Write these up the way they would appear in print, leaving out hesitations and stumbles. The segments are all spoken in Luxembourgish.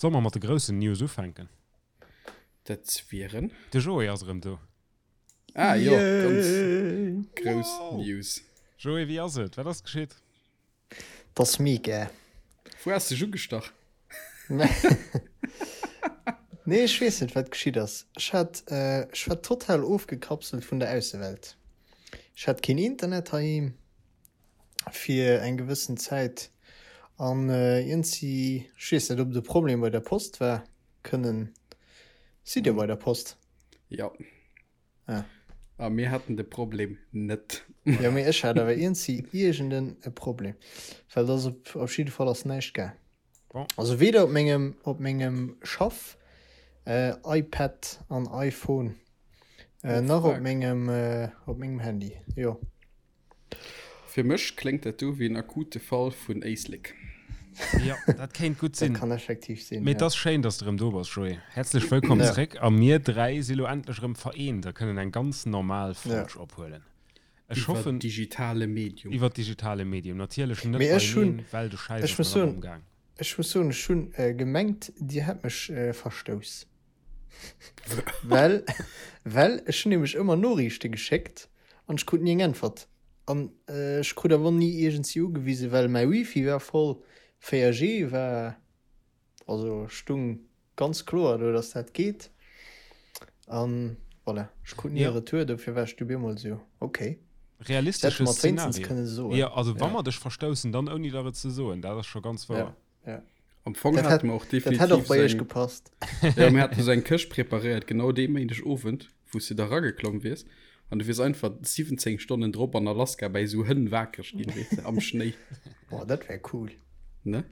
Solle mer mat de groussen News ufänken? Dat wieren? De Joé ass erëm do. Ah jo, ganz grouss News. Joé, wéi ass et? Wat ass geschitt? 't ass mega. Wou has dech ugestach? Nee, ech weess net, wat geschitt ass. Ech hat, ech war total ofgekapselt vun der Aussewelt. Ech hat keen Internet heiheem fir eng gewëssen Zäit an iergendsi, ech weess net, ob et e Problem bei der Post war, kënnen, sidd Dir bei der Post? Jo. Ah. A mir haten de Problem net. Jo, mee ech hat awer iergendsi iergenden e Problem, well et ass op op jidde Fall ass näischt gaang. Bon. Also weder op mengem op mengem Schaff äh, iPad an iPhone äh, Oh, nach op fuck. mengem äh, op mengem Handy. Jo. Fir mech kléngt dat do wéi en akute Fall vun Éislek. Jo, dat kéint gutt sinn. Dat kann effektiv sinn, Mee et ass schéin, dass de erëm do bass, Joé. Häerzlech wëllkomm zréck. A mir 3 si lo endlech erëm vereent a kënnen eng ganz normal Folg ophuelen. Ech hoffen. Iwwer digitale Medium. Iwwer digitale Medium. Natierlech net beieneen, well de Schäiss ass nach ëmmer am Gaang. Ech muss soen, ech hunn gemengt, Dir hätt mech verstouss. Well, well ech hunn nämlech ëmmer Noriichte geschéckt an ech krut ni eng Äntwert. An ech krut awer och ni iergendsi ugewisen, well mäi Wifi war voll, 4G war, also stung ganz kloer do, dass dat geet. An voilà, ech krut ni e Retour, dofir war ech du bemol esou, okay. Realistesche Szenario. Jo, also wa mer dech verstoussen, dann ouni der et ze soen, dat ass scho ganz wouer. Ja. Am Fong dat hat mer och definitiv dat hätt och bei iech gepasst. Ja, mir haten sou eng Këscht preparéiert, genau dee Méindeg Owend, wou s du da rageklomm wiers. An du wiers einfach 17 Stonnen drop an Alaska bäi sou Hënn wakereg ginn, weess de, am Schnéi. Boah, dat wär cool. Ne?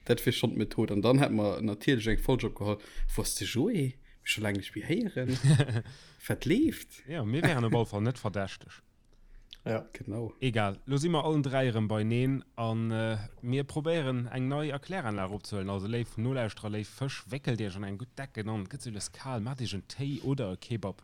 Dat wier schonn d'Method. An dann hätt mer natierlech eng Folg opgeholl, Wou ass de Joé? Mir scho laang nicht méi héieren. Wat leeft? Ja, mir wären op alle Fall net verdächteg. Ja. Genau. Egal, lo si mer allen 3 erëm beineen an mir probéieren eng nei Erkläranlag opzehuelen. Also léif Nolauschterer, léif Fësch, wéckelt iech an eng gutt Decken an, et gëtt sou lues kal, maacht iech en Téi oder e Kebab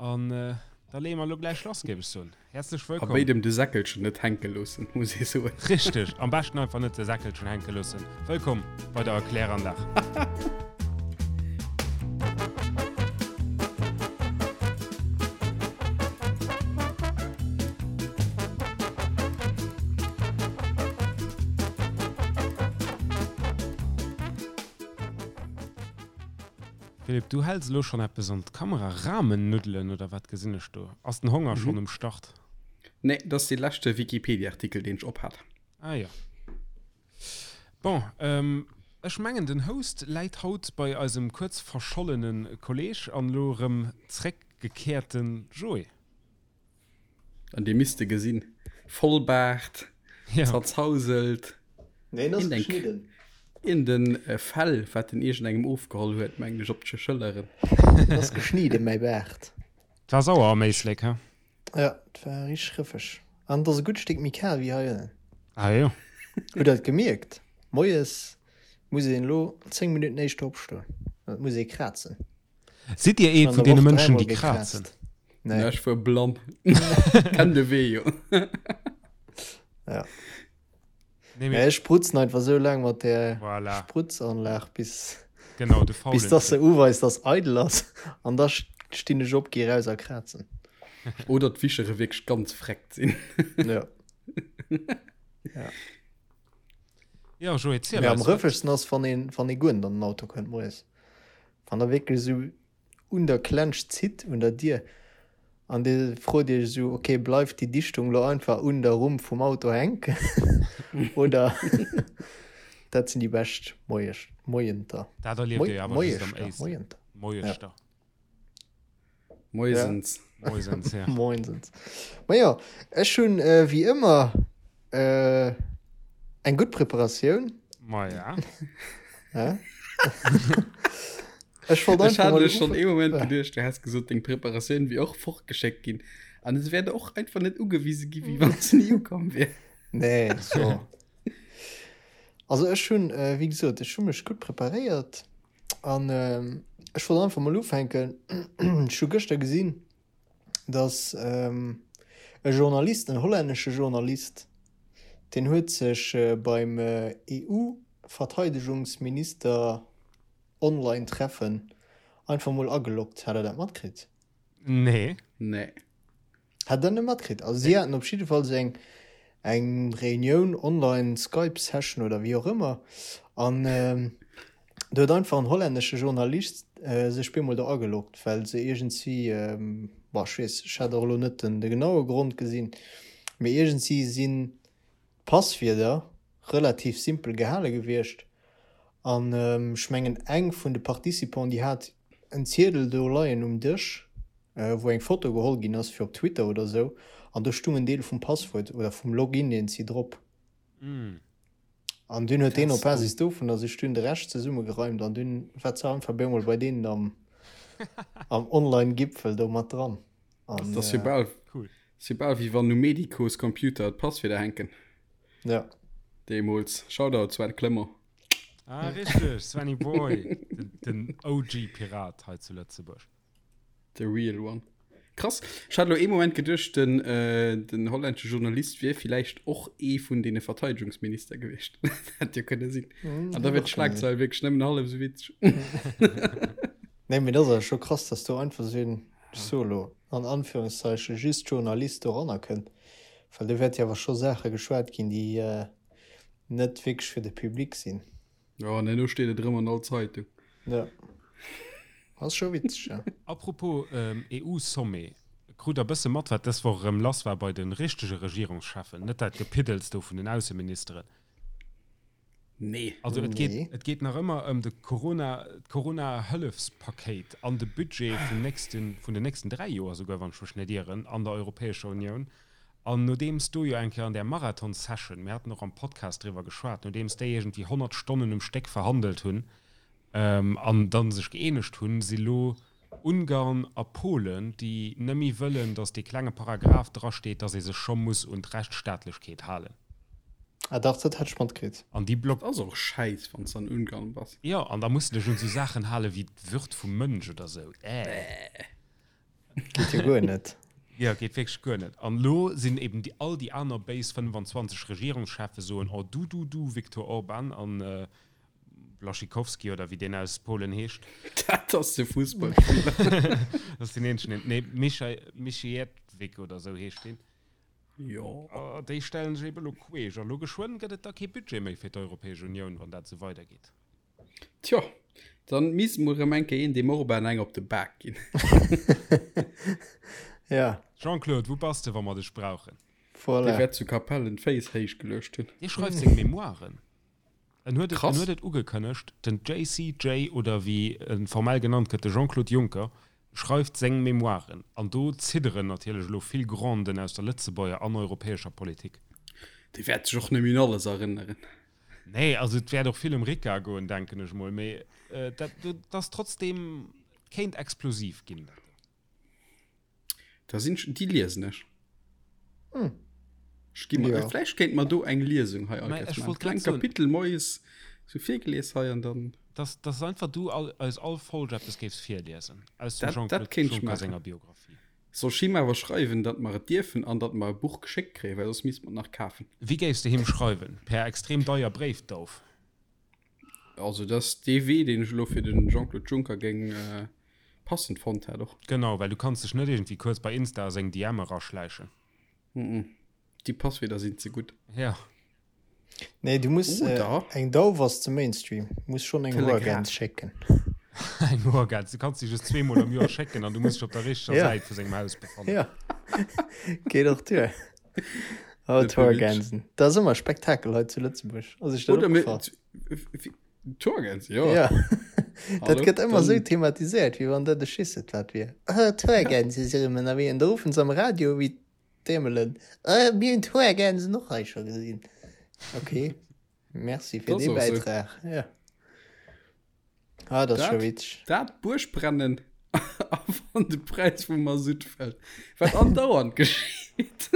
an da leeë mer lo gläich lass, géif ech soen. Häerzlech A wëllkomm. béidem de Säckelchen net hänke loossen, muss ee soen. Richteg, am beschten einfach net de Säckelchen hänke loossen. Wëllkomm bei der Erkläranlag. Philippe, du häls elo schonn eppes an d'Kamera, Ramen-Nuddelen oder wat gesinn ech do? Ass den Honger schonn um Start? Nee, dat ass dee leschte Wikipedia-Artikel, deen ech ophat. Ah jo. Bon, ech mengen den Host läit haut bei eisem kuerz verschollene Kolleg an elo erëm zréckgekehrte Joé. An dee misst de gesinn, Vollbaart, zerzauselt, iergend en Fell wat en iergendengem ofgeholl huet, mengen ech, op d'Schëlleren. En ass geschnidden, mäi Baart. 't war sauer am Éislek, he? Ja, et war richteg rëffeg. An et ass e gutt Stéck méi kal wéi hei ënnen. Ah jo. Hutt der et gemierkt? Moies muss een elo 10 Minutten éischter opstoen. Et muss ee krazen. Sidd Dir ee vun deene Mënschen, déi krazen? Nee. Ech wuar blann. Kenn de Wee jo. Ja. Nee, mee ech sprutzen einfach sou laang mat der voilà. Sprutzanlag bis genau, de bis dass se uweist dass eidel ass an da stinn ech op gi raus a krazen. Oder d'Wischere wierklech ganz freckt sinn. ja. ja. Ja, Joé, ziel ja, am rëffegsten ass wann een wann ee guer net an den Auto kënnt moies. Wann der wierklech sou un der Klensch zitt, un der Dier, an Dir frot Iech esou, ok, bleift déi Dichtung lo einfach un der Rumm vum Auto hänken oder? Dat sinn déi bescht Moies, Moienter. Dat erlieft Dir jo awer just am Éislek. Moienter. Moieschter. Moisens. Moisens, ja. Moinsens. Majo, ech hunn wéi ëmmer eng gutt Preparatioun. Maja. Ja. Ech wollt Ech einfach hat mal elo schonn ee Moment ufa- geduecht, du häss gesot, deng Preparatioun wier och fortgeschéckt ginn. An et wär och einfach net ugewise gi wéi wann se ni ukomm wier. Nee, so. Also ech hunn, äh, wéi gesot, ech hu mech gutt preparéiert an ähm, ech wollt einfach mol ufänken. Ech hu gëschter gesinn, dass ähm, e Journalist, en hollännesche Journalist, deen huet sech äh, beim äh, EU-Verteidegungsminister. Online-Treffen einfach mol ageloggt. Hat der dat matkritt? Nee. Nee. Hat der net matkritt? Also si haten op jidde Fall sou eng eng Reunioun, online Skype-Session oder wéi och ëmmer an do huet einfach en hollännesche Journalist sech bemol do ageloggt, well se iergendwéi, bon ech weess, ech hat och elo net den de genaue Grond gesinn, mee iergendwéi sinn d'Passwierder relativ simpel gehale gewiescht an ech mengen eng vun de Participants déi hat en Ziedel do leien um Dësch wou eng Foto geholl ginn ass fir op Twitter oder sou an do stung en Deel vum Passwuert oder vum Login deen si drop an dunn huet deen op Basis dovunner sech dunn de Rescht zesummegereimt an dunn war ze einfach bemol bei deenen am am Online Gipfel do mat dran an Dat ass jo bal Cool. ass jo bal wéi wann um Medicos Computer d'Passwierder hänken. Ja. Deemools. Shoutout Sven Clement. Ah, richteg, Svenny Boy, den, den OG-Pirat hei zu Lëtzebuerg. The real one. Krass. Ech hat elo ee Moment geduecht, den, äh, den hollännesche Journalist wier villäicht och ee vun deene Verteidigungsminister gewiescht. Hätt jo kënne sinn. An da wier d'Schlagzeil wierklech nëmmen hallef esou witzeg. Nee, mee dat ass awer scho krass, dass do einfach esou een, ech soe lo an Anführungszeichen, just Journalist doranner kënnt. Well do wäert jo awer scho Saache geschwat ginn, déi net wierklech fir de Public sinn. Jo, an herno steet et erëm an all Zeitung. Ja. Ass scho witzeg, ja. Apropos EU-Sommet, krut der bësse mat, wat dës Woch erëm lass war bei de richtege Regierungscheffen, net dat Gepiddels do vun den Ausseministeren? Nee. Also et geet, et geet nach ëmmer ëm de Corona, d'Corona-Hëllefspakéit an de Budget vum nächsten, vun den nächsten 3 Joer souguer, wann ech mech net ieren, an der Europäescher Unioun. An nodeems do jo eng Kéier an där Marathon-Session, mir haten och am Podcast driwwer geschwat, nodeems déi iergendwéi 100 Stonnen um Stéck verhandelt hunn an da sech gëeenegt hunn, si lo Ungarn a Polen, déi nëmme wëllen, datt dee klenge Paragraph drasteet, datt ee sech scho muss un d'Rechtsstaatlechkeet halen. Ah dach, dat hat ech matkritt. An déi block. Ass och schäiss, wann s de an Ungarn bass. Jo, an da muss de dech un esou Saachen hale wéi d'Würd vum Mënsch oder esou. Äh. Geet jo guer net. Jo, geet wierklech guer net. An elo sinn eben déi all déi aner béis 25 Regierungscheffe soen, Oh du, du, du, Viktor Orban an Blaszczykowski oder wéi deen aus Polen heescht. Dat ass de Fussballspiller. Dat ass deen eenzegen, deen, nee, Michai, Michiewicz oder esou heescht deen. Jo. Déi stellen sech eben elo queesch. A lo geschwënn gëtt et da kee Budget méi fir d'Europäesch Unioun, wann dat esou weidergeet. Tjo, dann misst mol rem eng Kéier een deem Orban eng op de Bak ginn. Ja. Jean-Claude, wou bass de, wa mer dech brauchen? Voilà. Dee wäert zu Capellen d'Féiss héich geluecht hunn. Dee schreift seng Memoiren. En huet et, Krass. en huet et ugekënnegt, den JCJ oder wéi e formell genannt gëtt, de Jean-Claude Juncker, schreift seng Memoiren. An do zidderen natierlech elo vill Granden aus der Lëtzebuerger an europäescher Politik. Dee wäert sech och net méi un alles erënneren. Nee, also et wäert och vill ëm Rica goen, denken ech mol, mee dat, dat ass trotzdem, et kéint explosiv ginn, dat do. Da sinn ech, déi liesen ech. Hm. Ech gi mer, Ja. vläicht kéint mer do eng Liesung hei Mä all ech Kéiers maachen. wollt Kleng grad soen. Kapitel moies sou virgelies hei an dann. Dass, dass einfach du all, eis all Folg eppes géifs virliesen aus dem Dat, dat Jean-Claude kéint ech Juncker maachen. senger Biografie. Soll ech him awer schreiwen, datt mer et dierfen an datt mer e Buch geschéckt kréien, well soss misst mer et nach kafen. Wéi géifs de him schreiwen? Per extrem deier Bréifdauf? Also dat ass dee Wee, deen ech elo fir de Jean-Claude Juncker géing passend fonnt hätt och. Genau, well du kanns dech net iergendwéi kuerz bei Insta a seng DM eraschläichen. Mm-mm. Déi Passwierder sinn ze gutt. Ja. Nee, du muss Oder? eng Dauf ass ze Mainstream. Muss schonn eng Telegraph. Hoergäns schécken. Eng Hoergäns, du kanns déi just zweemol am Joer schécken an du muss dech op der richteger Ja. Säit vu sengem Haus befannen. Ja. Geet och duer. Oh, Net méi witzeg. d'Hoergänsen. Dat ass ëmmer e Spektakel hei zu Lëtzebuerg. Ass iech dat Oder mir. opgefall? D'Hoergäns, jo. Ja. Dat Hallo? gëtt ëmmer Dann- esou thematiséiert, wéi wann dat e Schisset wat wier. Oh, d'Hoergänse si rëm ënnerwee. An da ruffen se am Radio wéi d'Dämelen, Oh, mir hunn d'Hoergänsen och hei scho gesinn. Okay. Merci fir Dat ass dee och esou. Bäitrag. Ja. Ah, dat ass scho Dat, witzeg. dat Buergbrennen a wann de Präis vum Masutt fält, wat andauernd geschitt.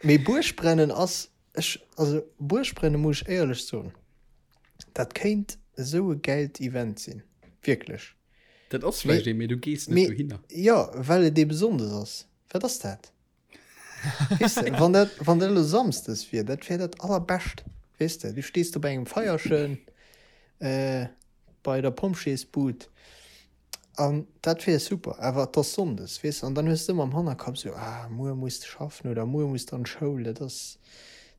Mee Buergbrennen ass, ech, also Buergbrennen muss ech éierlech soen, dat kéint esou e gäilt Event sinn, wierklech. Dat ass Mee, vläicht ee, mee du gees net mee, dohinner. jo, well et eebe Sonndes ass. Wat ass dat? Weess de, wann dat, wann dat elo Samsdes wier, dat wär dat allerbescht, weess de. Du stees do bei engem Feierchen, bei. bei der Pompjeesbud. An dat wier super, awer et ass Sonndes, weess, an dann hues de ëmmer am Hannerkapp esou, ah, muer muss de schaffen oder muer muss de an d'Schoul, dat ass,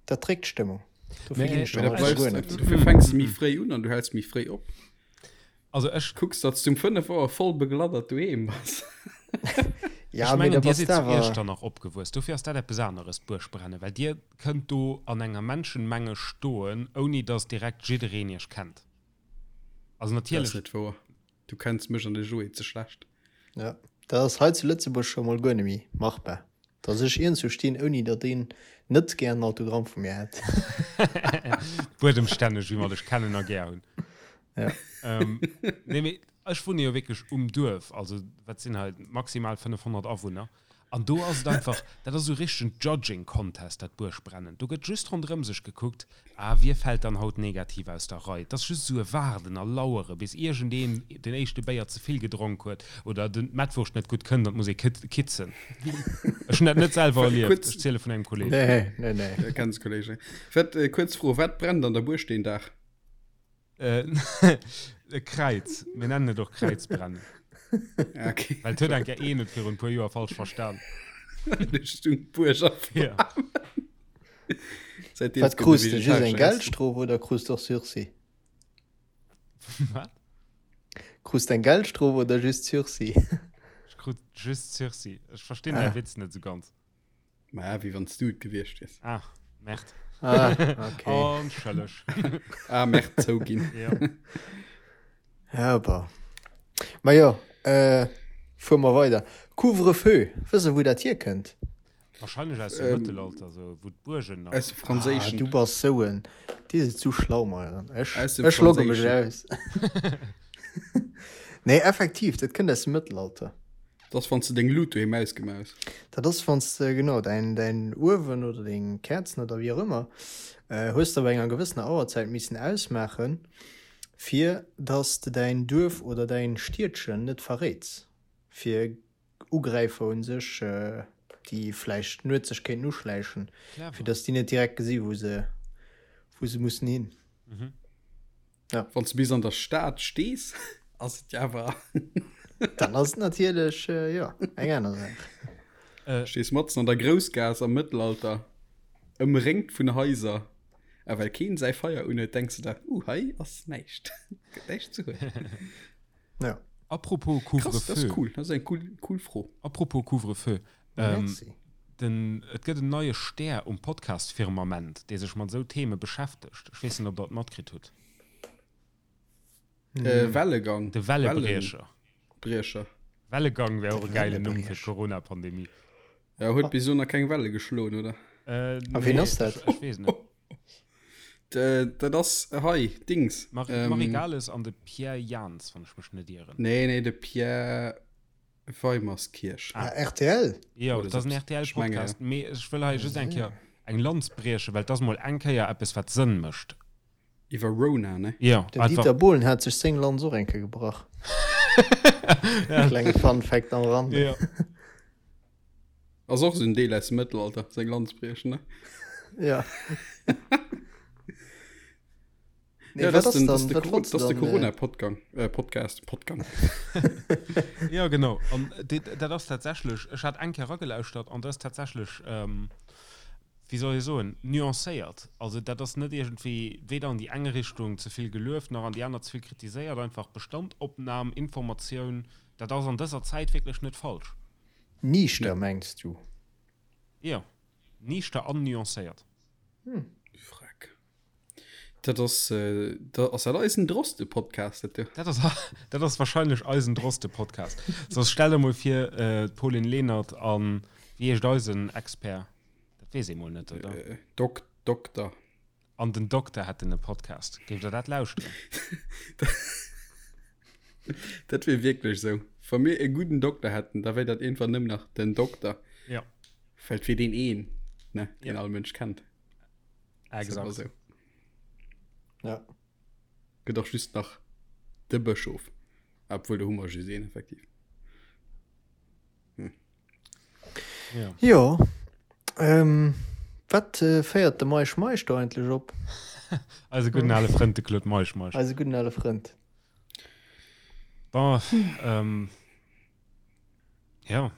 dat dréckt d'Stëmmung. Dofir ginn ech dann alt guer net. Dofir fänks de méi fréi un an du häls méi fréi op. Also ech. Kucks, datt s du um 5 Auer voll begladdert doheem bass. Ja, Ech mengen, mee da dir bass sidd de zu awer. Iechternach opgewuess, dofir ass dat eppes aneres, d'Buergbrennen, well dir kënnt do an enger Menschenmenge stoen, ouni datt direkt jiddereen iech kennt. Also Dat ass natierlech. net wouer. Du kenns mech an de Joé ze schlecht. Ja, dat ass hei zu Lëtzebuerg scho mol guer net méi machbar, dass ech iergendwou stinn, ouni datt een net gär en Autogramm vu mir hätt. Buedemstänneg, wéi mer dech kennen a gär hunn. Ja. Ähm, nee, mee ech wunne jo wierklech um Duerf, also wat sinn hei maximal 500 Awunner. An do ass et einfach, dat ass esou richtegen Judging Contest, dat Buergbrennen. Do gëtt just ronderëm sech gekuckt, ah, wie fält dann haut negativ aus der Rei. Et ass just esou e Waarden a Lauere bis iergendeen den éischte Béier ze vill gedronk huet oder den d'Mettwurscht net gutt kënnt an et muss ee kitzen. Ech hunn dat net selwer erlieft, ech ziele vun engem Kolleeg. Nee, nee, nee. Ja, kenns Kolleeg. Wat, kuerz Fro, wat brennt an der Buerg deen Dag? E Kräiz. Mir nennen et och Kräizbrennen. Okay. Well et huet eng Kéier een et virun e puer Joer falsch verstan. Du stung d'Buerg a Ja. Seitdeem Wat gëtt e krus de? Just eng vegetaresche Essen. Geldstrof oder krus de och Sursis? Wat? Krus de eng Geldstrof oder just Sursis? Ech krut just Sursis. Ech verstinn däi Ah. Witz net esou ganz. Ma wéi wann s du et gewiescht wiers. Ah, Merde. Ah, okay. Entschëlleg. Ah, Merde, zouginn. Ja. Ja, bah. Ma jo, äh, fuere mer weider. Couvre-feu, wësst der, wou dat hierkënnt? Wahrscheinlech aus dem Ähm, Mëttelalter, sou, wou d'Buergen nach. Aus dem Ah, Franséischen. du bass sou en. Dir sidd zu schlau, Meieren. Ech, Aus dem ech logge mech Franséischen. aus. Nee, effektiv, dat kënnt aus dem Mëttelalter. Dat ass, wann s de deng Lut doheem ausgemaach hues. Dat ass, wann s de, genau, däin, däin Uewen oder deng Käerzen oder wéi och ëmmer, hues de op enger gewëssener Auerzäit missen ausmaachen, fir dass de däin Duerf oder däin Stiedchen net verréits, fir Ugräifer un sech, déi vläicht nuets sech kéinten uschläichen, fir dass déi net direkt gesi wou se, wou se mussen hin. Ja. Wann du bis an der Stad stees, ass et ja awer. Dann ass et natierlech äh, ja, eng aner Saach. Äh, Stees matzen an der Groussgaass am Mëttelalter, ëmréngt vun Haiser, a well keen säi Feier unhuet, denks du der, uh, hei ass näischt. Gëtt näischt ze huelen. Ja. Apropos Krass, dat ass Couvre-feu. cool. Dat ass eng cool, cool Fro. Apropos Couvre-feu. Ähm, Merci. den, et gëtt en neie Stär um Podcast-Firmament, dee sech mat esou Theme beschäftegt. Ech weess net, ob Der et matkritt hutt. Äh, Wellegang. De Wellebriecher. Wellebriecher. Wellegang wär och e gäilen Numm fir Wellebriecher. d'Corona-Pandemie. Ja, huet bis elo nach keng Welle geschloen, oder? Äh, A wien nee, ass dat? Ech, ech weess net. Dat ass hei, Dings. Marie, Ähm, Marie Gales an de Pierre Jans, wann ech mech net ieren. Nee, nee, de Pierre Weimerskirch. Ah, RTL? Jo, Oder dat ass en sou. Ech menge, RTL-Podcast. Mee ech wëll hei just eng Kéier eng Lanz briechen, well et ass mol eng Kéier eppes, wat Sënn mécht. Iwwer Rona, ne? Jo, Den einfach. Dieter Bohlen hat sech seng Lanz och eng Kéier gebrach. Klenge Fun Fact am Rande. Jo. Ass och esou en Deel aus dem Mëttelalter, seng Lanz briechen, ne? Ja. Nee, Ja, wat dat ass den, ass das dann, de wat Coro- wollts du das de dann, äh, Corona-Podgang, äh, Podcast, Podgang. Ja, genau. An dit, dat ass tatsächlech, ech hat eng Kéier eragelauschtert an dat ass tatsächlech, ähm, wéi soll ech soen, nuancéiert. Also dat ass net iergendwéi weder an déi eng Richtung ze vill gelueft, nach an déi aner ze vill kritiséiert. Einfach Bestandopnam, Informatioun, dat ass an dëser Zäit wierklech net falsch. Niichter, mengs du? Jo, niichter an nuancéiert. Freck. Dat ass, dat ass dat eisen Droste-Podcast, dat do? Dat ass, dat ass wahrscheinlech eisen Droste-Podcast. Soss stell der mol vir, d'Pauline Lenert an, wéi heescht eisen Expert? Dat weess ee mol net, oder? Dok, Dokter. An den Dokter hätten e Podcast. Géift der dat lauschteren? Dat wier wierklech esou. Wa mir e gudden Dokter hätten, da wär dat iergendwann nëmmen nach den Dokter. Ja. Well et wier deen een, ne, deen Ja. all Mënsch kennt. Exakt. Esou. Ja. Gëtt och just nach de Bëschof. Obwuel, do hu mer just een, effektiv. Hm. Ja. Jo. Ähm, wat äh, féiert de Meisch Meisch do eigentlech op? Eise gudden ale Frënd, de Claude Meisch Meisch. Eise gudden ale Frënd. Bon, ähm, ja,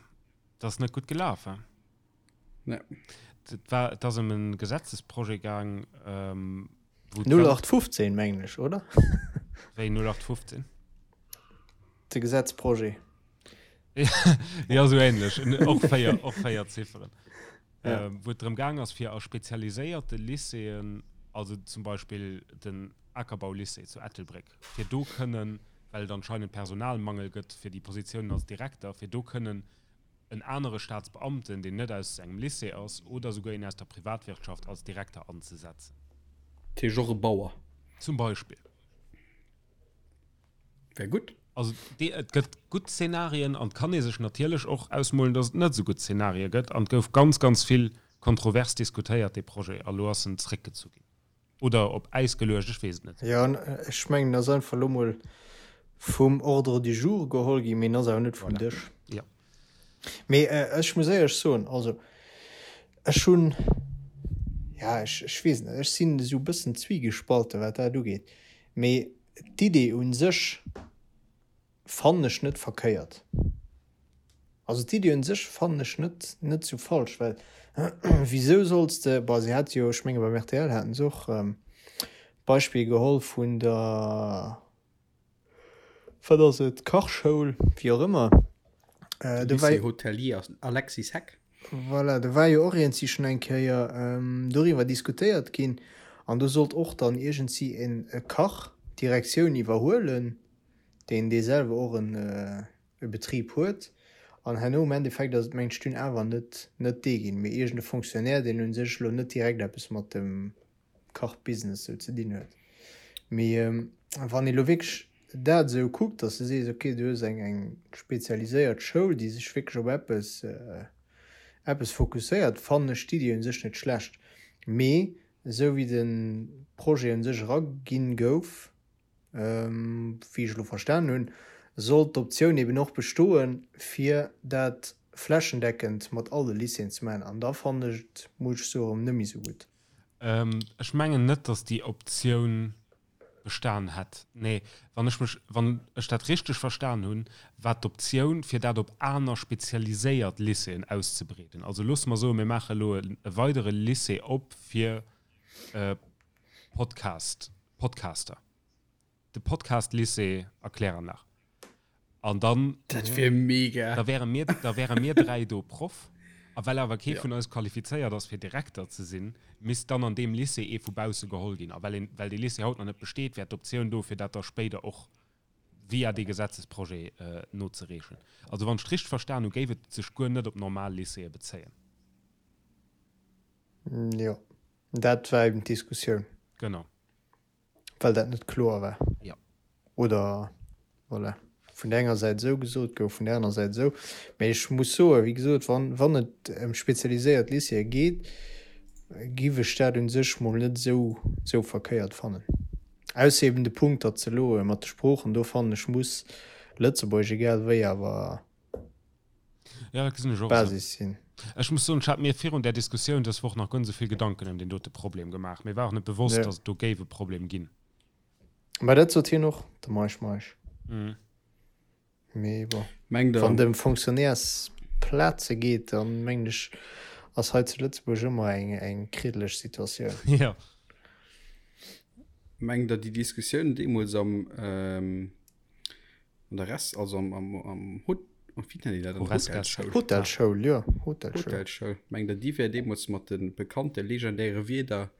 dat ass net gutt gelaf, hein? Nee. Et war, et ass ëm e Gesetzesprojet gaang, ähm, wou 0815, mengen ech, oder? Wéi 0815? De Gesetzprojet. Ja, sou ähnlech. Och véier, och véier Zifferen. Ja. Ähm, wou et drëm gaang ass, fir a spezialiséierte Lycéeën, also zum Beispill den Akerbau-Lycée zu Ettelbréck, fir do kënnen, well et anscheinend Personalmangel gëtt fir déi Positiounen als Direkter, fir do kënnen en anere Staatsbeamten, deen net aus engem Lycée ass, oder souguer een aus der Privatwirtschaft als Direkter anzesetzen. Dat heescht och e Bauer. Zum Beispill. Wär gutt. Also et gëtt gutt Szenarien an et kann ee sech natierlech och ausmolen, datt et net esou gutt Szenarie gëtt. An et gouf ganz, ganz vill kontrovers diskutéiert, dee Projet, a lo ass en zréckgezu ginn oder op Äis geluecht, ech weess et net. Jo, ech mengen, en ass einfach elo mol vum Ordre du jour geholl ginn, mee en ass awer net vum Dësch. Jo. Mee ech muss éierlech soen, also ech hunn, ja, ech, ech weess net, ech sinn esou e bëssen zwiegespalten, wat dat ugeet. Mee d'Idee u sech fannen ech net verkéiert. Also d'Idee un sech fannen ech net, net sou falsch, well wisou solls de, bon se hate jo, ech menge beim rtl haten se och d'Beispill geholl vun der, wat ass et, Kachschoul, wéi och ëmmer, do war. Lycée Hôtelier Alexis Heck. Voilà, do war jo och iergendsi schonn eng Kéier doriwwer diskutéiert ginn an do sollt och dann iergendsi en Kach d'Direktioun iwwerhuelen, deen dee selwer och en e Betrib huet an herno am Endeffekt ass et mengt ech dunn awer net net dee ginn, mee iergend e Fonctionnaire, deen u sech elo net direkt eppes mat dem Kachbusiness sou ze dinn huet. Mee wann ee lo wierklech dat esou kuckt, datt s de sees, okay, du hues eng eng spezialiséiert Schoul, déi sech wierklech op eppes eppes fokusséiert, fannen ech d'Iddi u sech net schlecht. Mee esou wéi de Projet u sech eraginn gouf, Wéi ech elo verstanen hunn, sollt d'Optioun eben och bestoen, fir dat flächendeckend mat all de Lycéeën ze maachen. An da fannen ech et, muss ech soen, erëm net méi esou gutt. Ech mengen net, datt déi Optioun bestan hätt. Nee, wann ech mech, wann ech dat richteg verstan hunn, war d'Optioun, fir dat op aner spezialiséiert Lycéeën auszebreeden. Also loosse mer soen, mir maache elo e weidere Lycée op fir Podcast, Podcaster. De Podcast-Lycée a Klärernach. An dann. Dat wier mega. Da wäre mir, da wäre mir dräi do Proff. A well awer kee vun eis qualifizéiert ass, fir Direkter ze sinn, misst dann an deem Lycée ee vu bausse geholl ginn. A well een, well dee Lycée haut nach net besteet, wär d'Optioun do, fir dat da spéider och via dee Gesetzesprojet nozereechen. Also wann ech et richteg verstan hu, géif et sech guer net op normal Lycéeë bezéien. Jo. Dat war eben d'Diskussioun. Genau. Well dat net kloer war. Jo. Oder, voilà, vun der enger Säit esou gesot gouf, vun der aner Säit esou. Mä ech muss soen, wéi gesot, wann, wann et ëm spezialiséiert Lycéeë geet, giff ech dat u sech mol net esou, esou verkéiert fannen. Ausser eben de Punkt, datt se elo mat de Sproochen, do fannen ech, muss Lëtzebuergesch egal wéi awer Ja, dat gesinn ech och esou. Basis sinn. Ech muss soen, ech hat mir virun där Diskussioun dës Woch nach guer net esou vill Gedanken ëm deen dote Problem gemaach. Mir war och net bewosst, Ja. datt et do géif e Problem ginn. Mä dat sot hien och, de Meisch Meisch. Mhm. Mee bon, Mengt der, wann et ëm Fonctionnairesplaze geet, dann mengen ech, ass hei zu Lëtzebuerg ëmmer eng, eng kriddeleg Situatioun. Ja. mengt der déi Diskussioun deemools am, ähm, An der Rest, also am, am, am Hot, oh, wéi nennen déi dat? An der Horesca. Hotelschoul. Hotelschoul, jo, Hotelschoul. Hotelschoul. Mengt der, déi wär deemools mat de bekannte legendäre Wierder,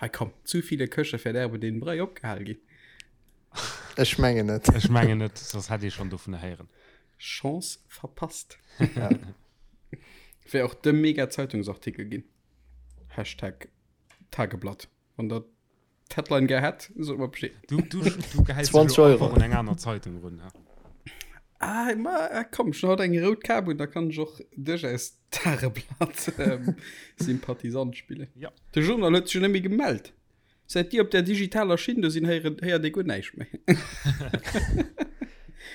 Hei komm, zu viele Köche verderben den Brei opgehal ginn? Ech mengen net. Ech mengen net, soss hätt ee schonn dovun héieren. Chance verpasst. Ja. Wär och de mega Zeitungsartikel ginn. Hashtag Tageblatt. Wann der d'Headline gär hätt, sot mer Bescheed. Du, du, du gehäis 20 Euro. un eng aner Zeitung run. Ha? Ah, ma, ah, komm, schon haut eng rout Kap un, da kann ech och duerchaus Tageblatt ähm, Sympathisant spillen. Ja. De Journal huet sech jo net méi gemellt. Säit déi op der digitaler Schinn do sinn, héieren, héiert ee guer näischt méi.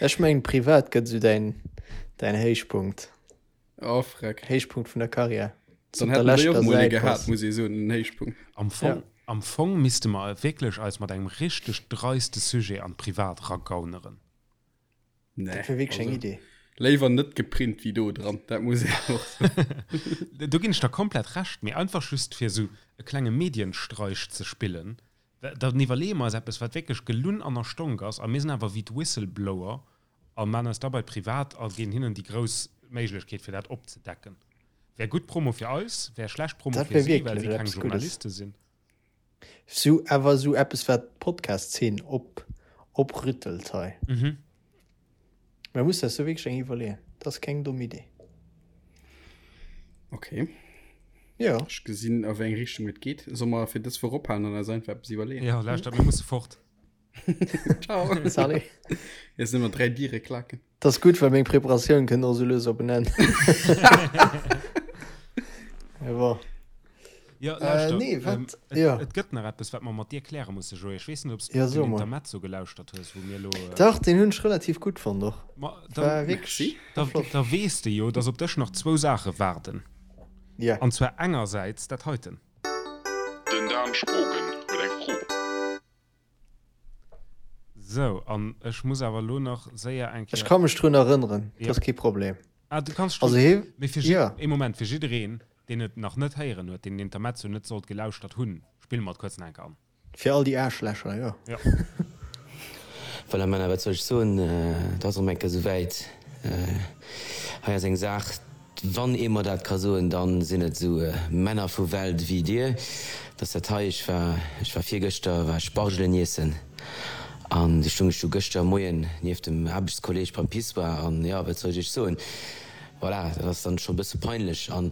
Ech mengen privat gëtt esou däin, däin Héichpunkt. Oh, freck. Héichpunkt vun der Karriär. Dann hätten déi och mol ee gehat, muss ee soen, en Héichpunkt. Am Fong, am Fong misste mer wierklech eis mat engem richteg dreiste Sujet an d'Privat ragauneren. Nee, Dat wär wierklech eng also, Idee. Léiwer net geprint wéi do dran, dat muss een och soen. Do ginn ech der komplett Recht, mee einfach just fir esou e klenge Medienstreich ze spillen, dann iwwerleeë mer eis eppes, wat wierklech gelunn an erstonk ass, a mir sinn awer wéi d'Whistleblower a maan eis dabei privat a ginn hinnen déi grouss Méiglechkeet fir dat opzedecken. Wär gutt Promo fir eis, wär schlecht Promo Dat fir wär si, well wierklech si keng eppes Guddes. Journaliste sinn. Sou awer sou eppes wat d'Podcast-Zeen op oprüttelt hei. Mhm. Mä muss eis do wierklech eng iwwerleeën. Dat ass keng domm Idee. Okay. Jo. Ech gesinn a wéi eng Richtung et geet. Solle mer fir dës Woch ophalen an eis einfach eppes iwwerleeën? Jo, lauschtert, mir musse fort. Ciao. Salut. Jetzt nëmmer 3 Diere klaken. Dat ass gutt, well meng Preparatioun kënnt och sou lues op en Enn. Mee bon. Ja, lauschter, Äh, nee, wat? ähm, et, Ja. et gëtt nach eppes, wat mer mat dir kläre musse, Joé. Ech weess net, ob s du Ja, so den mol. Intermezzo gelauschtert hues, wou mir elo. Äh, Dach, deen hunn ech relativ gutt fonnt och. ma, War dann, wierklech Merci. da, flott. da weess de jo, dass op dech nach zwou Saache waarden. Ja. An zwar engersäits dat heiten. Den Dan Spogen huet eng Fro. Sou, an ech muss awer elo nach séier eng Ech Kéier. ka mech drun erënneren, Ja. dat ass kee Problem. Ah, du kanns dech Also drun. hie, Mee fir ja. ee Moment, fir jiddereen, deen et nach net héieren huet, deen den Intermezzo net sollt gelauschtert hunn, spille mer et kuerz nach eng Kéier an. Fir all déi Aarschlächer, jo. Jo. Voilà Männer, wat soll ech soen, et ass erëm eng Kéier esouwäit. Hei ass eng Saach, wann ee mer dat ka soen, dann sinn et esou Männer vu Welt ewéi dir, dass dat hei, ech war, ech war virgëschter war ech Spargelen iessen an du stung ech du gëschter Moien nieft dem Aarbechtskolleg beim Pissoir an jo, wat soll ech iech soen, voilà, dat ass dann scho e bësse peinlech. An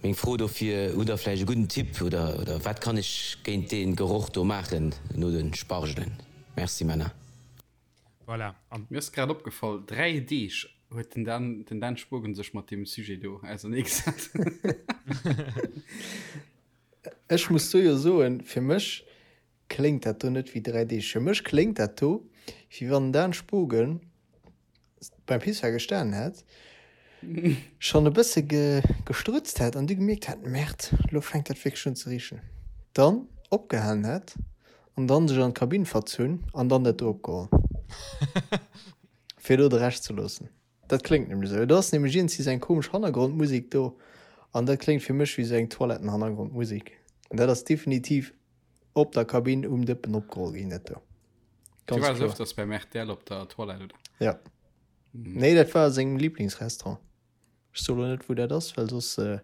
meng Fro dofir, hutt der vläicht e gudden Tipp oder, oder wat kann ech géint dee Geroch do maachen no de Spargelen? Merci Männer. Voilà, an. Mir ass grad opgefall, 3 Deeg huet den Dan, den Dan Spogen sech mat deem Sujet do auserneegesat. Ech muss do jo soen, fir mech kléngt dat do net wéi 3 Deeg. Fir mech kléngt dat do, wéi wann den Dan Spogen beim Pissoir gestanen hätt, schonn e bësse gestrutzt hätt an du gemierkt hätt, Merde, lo fänkt dat wierklech un ze richen. Dann opgehalen hätt an dann sech an d'Kabinn verzunn an dann dat do opgeholl, fir do de Rescht ze loossen. Dat kléngt nämlech esou. Et ass nämlech iergendwéi esou eng komesch Hannergrondmusek do an dat kléngt fir mech wéi esou eng Toilettenhannergrondmusek. An dat ass definitiv op der Kabinn um Dëppen opgeholl ginn, dat do. Du Ganz waars kloer. öfters beim RTL op der Toilette, oder? Ja. Nee, dat war a sengem Lieblingsrestaurant. Ech soe lo net, wou dat ass, well soss äh,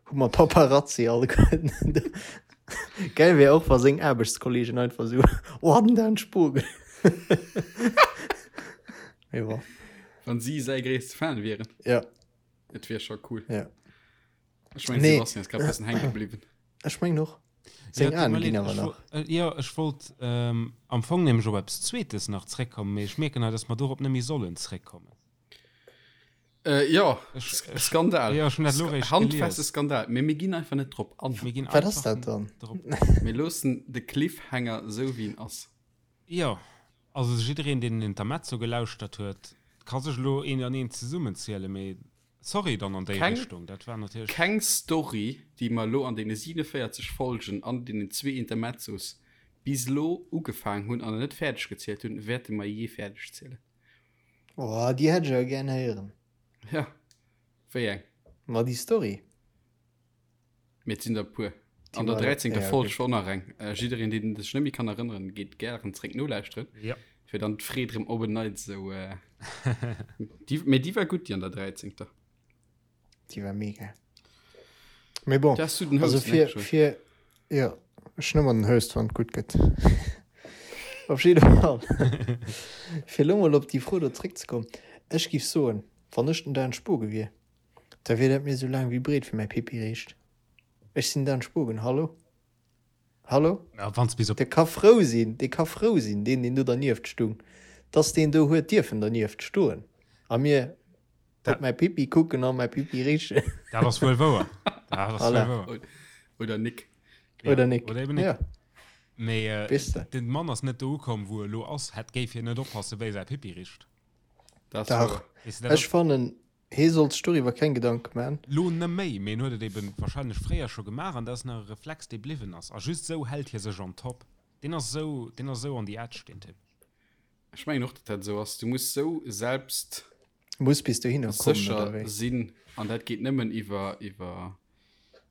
hu mer Paparazzi alleguerten. Geil wär och, wa seng Aarbechtskollegen einfach sou, Oh, den Dan Spogen. Mee bon. Wann si säi gréisste Fan wieren. Ja. Et wier scho cool. Ja. Ech mengen, Nee. Sebastian ass grad e bëssen hänke bliwwen. Ech mengen och. Seng Ja, tut Aen mir ginn leed, awer ech nach. wo- äh, Jo, ech wollt ähm, am Fong nämlech op eppes Zweetes nach zréckkommen, mee ech mierken hei, dass mer dorop net méi sollen zréckkommen. Äh, ja, Ech- Sk- ech- Skandal. Ja, ech hunn dat elo Sk- réischt Handfeste gelies. Skandal. Mee mir ginn einfach net drop an. Mir ginn Wat ass einfach dat dann? drop. Mir loossen de Cliffhanger esou wéi en ass. Jo, also jiddereen, deen den Intermezzo gelauschtert huet, ka sech elo een an een zesummenzielen, mee Sorry dann an déi Keng, Richtung, dat war natierlech. keng Story, déi mer elo an deene 47 Folgen an deenen zwee Intermezzos bis elo ugefaangen hunn an net fäerdeg gezielt hunn, wäerte mer jee fäerdeg zielen. Oh, déi hätt ech awer gären héieren. Ja, wéi eng? Ma déi Story. Mee et sinn der e puer. Déi An der war- 13. ja, Folg okay. schonn nach eng. Äh, jiddereen, deen sech net méi kann erënneren, geet gären zréck nolauschteren, Ja. fir dann d'Freed rëm op en Neits esou. Äh, déi, mee déi war gutt, déi an der 13. Déi war mega. Mee bon, Da has du den also Host, ne, fir, Joé? fir, ja, ech hunn ëmmer den Host, wann et gutt gëtt. Op jidde Fall, fir elo mol op déi Fro do zréckzekommen, ech giff soen, wann ech den Dan Spogen wier, Da wier dat mir sou laang wéi breet fir mäi Pipi riicht. Ech sinn Dan Spogen, hallo? Hallo? Ja, wanns bis op. Dee ka frou sinn, dee ka frou sinn, deen, deen do dernieft stung, dass deen do huet dierfen dernieft stoen a mir op mäi Pipi kucken a mäi Pipi richen. Dat ass wuel wouer. Dat ass wuel Voilà. wouer. Oder Nick. Ja, Oder Nick. Oder eben Nick. Ja. Mee äh, Weess de. den Mann ass net do ukomm, wou e lo ass, hätt géif hien net oppassen, wéi säi Pipi richt. Dat ass Dach. wouer. Weess de, dat Ech ass. fannen, Hee sollt sech doriwwer keng Gedanke man. Lo neméi, mee en huet et eben wahrscheinlech fréier scho gemaach an dat ass nach e Reflex dee bliwwen ass a just sou hält hie sech on top. Deen ass sou, deen ass sou on the edge deen Typ. Ech mengen och, datt dat esou ass. Du muss sou selbst Muss bis dohinner kommen, oder sécher wéi? sinn an dat geet nëmmen iwwer iwwer